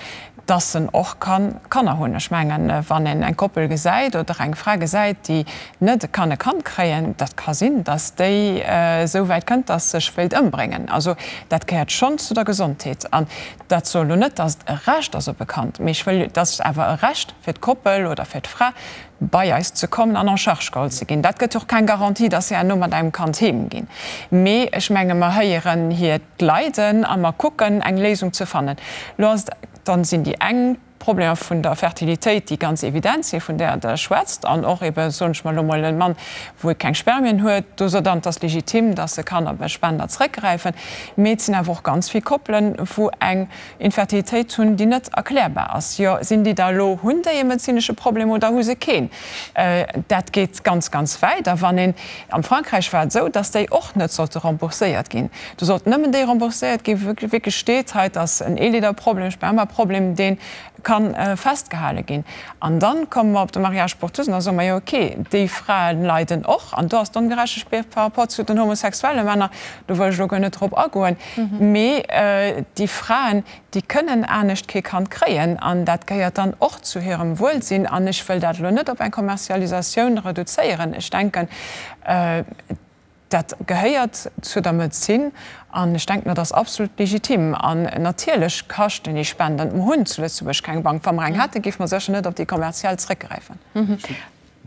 dass en och ka Kanner hunn. Ech mengen, wann een eng Koppel gesäit oder eng Fra gesäit, déi net kann e Kand kréien, dat ka sinn, dass déi esou wäit kënnt, dass sech wéilt ëmbréngen. Also dat gehéiert schonn zu der Gesondheet. An dat soll elo net, dass et e Recht ass op e Kand, mee ech wëll, dass et awer e Recht fir d'Koppel oder fir d'Fra, bei eis ze kommen an en charge geholl ze ginn. Dat gëtt jo och keng Garantie, dass se herno mat engem Kand heem ginn. Mee ech menge mer héieren hiert Leiden a mer kucken eng Léisung ze fannen. Lo ass et, dann sinn déi eng Problemer vun der Fertilitéit, déi ganz evident sinn, vun där Der schwätzt, an och ebe soen ech mer elo mol e Mann, wou e keng Spermien huet, do sot Der, et ass legitim, dass e kann op e Spender zrëckgräifen. Mee et sinn awer och ganz vill Koppelen, wou eng Infertilitéit hunn, déi net erklärbar ass. Jo, sinn déi da elo, hunn déi e medezinesche Problem oder hu se keen? Dat geet ganz, ganz wäit. A wann een, am Frankräich war et esou, datt déi och net sollte rembourséiert ginn. Do sollten nëmmen déi rembourséiert ginn, wou wierklech steet, hei et ass en Eelleederproblem, e Spermaproblem, dee ka festgehale ginn. An dann komme mer op de Mariage pour tous an da soe mer, jo okay, déi Frae leiden och. An do ass d'Ongerechtegkeet par rapport zu den homosexuelle Männer, do wëll ech elo guer net drop agoen, mee déi Fraen, déi kënnen anescht kee Kand kréien an dat gehéiert dann och zu hirem Wuelsinn. An ech wëll dat elo net op eng Kommerzialisatioun reduzéieren. Ech denken. Dat gehéiert zu der Medezin an ech denken, dat ass absolut legitim. An natierlech kaschten déi Spenden. Mer hunn zu Lëtzebuerg keng Bank. Wa mer eng hätten, géife mer sécher net op déi kommerziell zréckgräifen.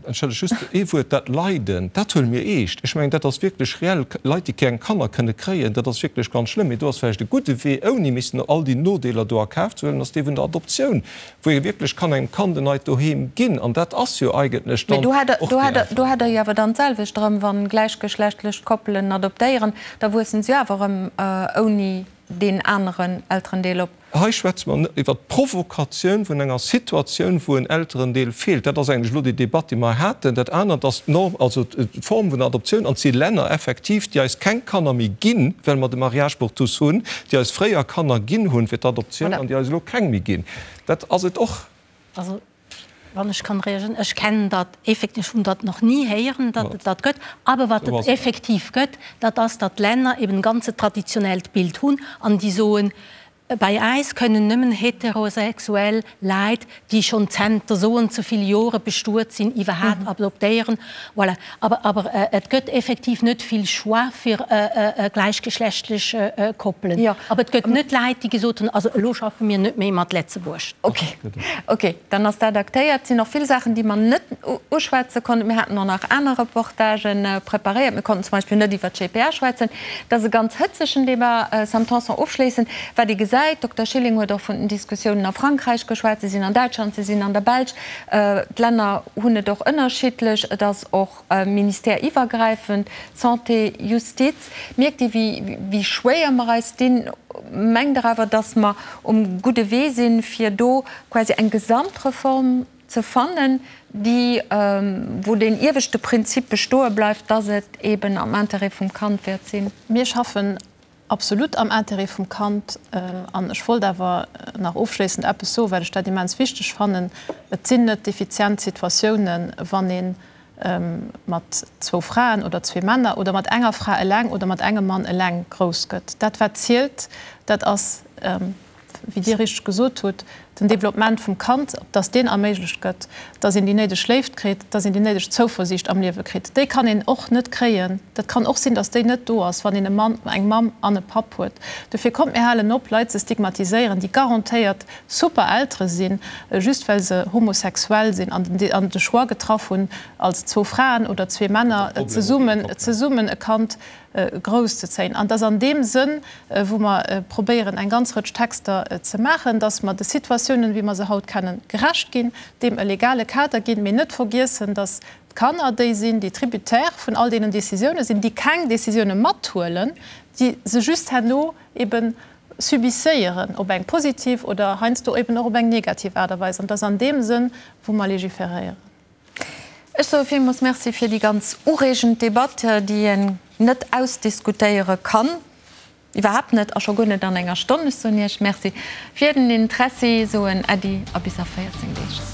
Entschëllegt, just ee Wuert, Dat Leiden, dat huele mir eescht. Ech mengen, dat ass wierklech reell. Leit, déi keng Kanner kënne kréien, dat ass wierklech ganz schlëmm. Mee do ass vläicht e gudde Wee, ouni missen all déi Nodeeler do a Kaf ze huelen, ass dee vun der Adoptioun, wou ee wierklech kann engem Kand en neit Doheem ginn. An dat ass jo eigentlech dann och déi Mee do Äntwert. Do hätt Der jo awer dann d'selwecht erëm, wa gläichgeschlechtlech Koppelen adoptéieren, da wuessen se jo awer erëm ouni deen aneren Elterendeel op. Hei schwätze mer net iwwert d'Provokatioun vun enger Situatioun, wou en Elterendeel feelt. Dat ass eigentlech elo déi Debatt, déi mer haten. Dat anert ass d'Norm, also d'Form vun der Adoptioun. An et si Länner effektiv, déi eis keng Kanner méi ginn, well mer de Mariage pour tous hunn, déi eis fréier Kanner ginn hunn fir d'Adoptioun an déi eis elo keng méi ginn. Dat ass et och. Also, wann ech kann reagieren, ech kennen dat effektiv, ech hunn dat nach ni héieren, datt et dat gëtt. Aber wat et effektiv gëtt, dat ass, datt d'Länner eben e ganze traditionellt Bild hunn an déi soen, bei eis kënnen nëmmen heterosexuell Leit, déi schonn zenter esou an esou vill Jore bestuet sinn, iwwerhaapt adoptéieren. Voilà. Aber, aber et gëtt effektiv net vill Choix fir gläichgeschlechtlech Koppelen. Aber et gëtt net Leit, déi gesot hunn, also elo schaffe mir net méi mat Letzebuerg. Ok, ok, dann ass dat aktéiert. Et sinn och vill Saachen, déi mer net uschwätze konnten. Mir haten och nach aner Reportagë preparéiert. Mir konnten zum Beispill net iwwer d'GPA schwätzen. Dat ass e ganz hëtzegen Débat. Sam Tanson, ofschléissend, wat ee gesäit, Dokter Schilling huet och vun den Diskussiounen a Frankräich geschwat, se sinn an Däitschland, se sinn an der Belsch. D'Länner hunn et och ënnerschiddlech. Et ass och Ministère-iwwergräifend, Santé, Justiz. Mierkt Dir, wéi schwéier mer eis dinn? Mengt Der awer, datt mer um gudde Wee sinn, fir do quasi eng Gesamtreform ze fannen, déi, wou deen ieweschte Prinzip bestoe bleift, datt et eben am Intérêt vum Kand wäert sinn? Mir schaffen Absolut am Intérêt vum Kand. An ech wollt awer nach ofschléissend eppes soen, well ech dat immens wichteg fannen. Et sinn net effizient Situatiounen, wann ee mat zwou Fraen oder zwee Männer oder mat enger Fra eleng oder mat engem Mann eleng grouss gëtt. Dat wat zielt, dat ass, wéi Dir richteg gesot hutt, den Développement vum Kand, dass deen erméiglecht gëtt, dass een déi néideg Léift kritt, dass een déi néideg Zouversiicht am Liewe kritt. Déi kann een och net kréien, dat kann och sinn, dass déi net do ass, wann een e Mann, eng Mamm an e Papp huet. Dofir kommt, mir halen op, Leit ze stigmatiséieren, déi garantéiert super Eltere sinn, just well se homosexuell sinn an de Choix getraff hunn, als zwou Fraen oder zwee Männer zesummen, zesummen e Kand grouss ze zéien. An et ass an deem Sënn, wou mer probéieren, eng ganz Rëtsch Texter ze maachen, dass mer de Situatiounen, wéi mer se haut kennen, gerecht ginn, deem e legale Kader ginn, mee net vergiessen, dass d'Kanner déi sinn, déi Tributaire vun all deenen Décisiounen sinn, déi keng Décisioune mathuelen, déi se just herno ebe subisséieren, op eng positiv oder heiansdo eben och op eng negativ Aart a Weis. An et ass an deem Sënn, wou mer légiféréieren. Ech soe villmools Merci fir déi ganz ureegend Debatt, déi een net ausdiskutéiere kann, iwwerhaapt net a scho guer net an enger Stonn. Ech soen Iech Merci fir den Interessi, soen Äddi a bis a 14 Deeg.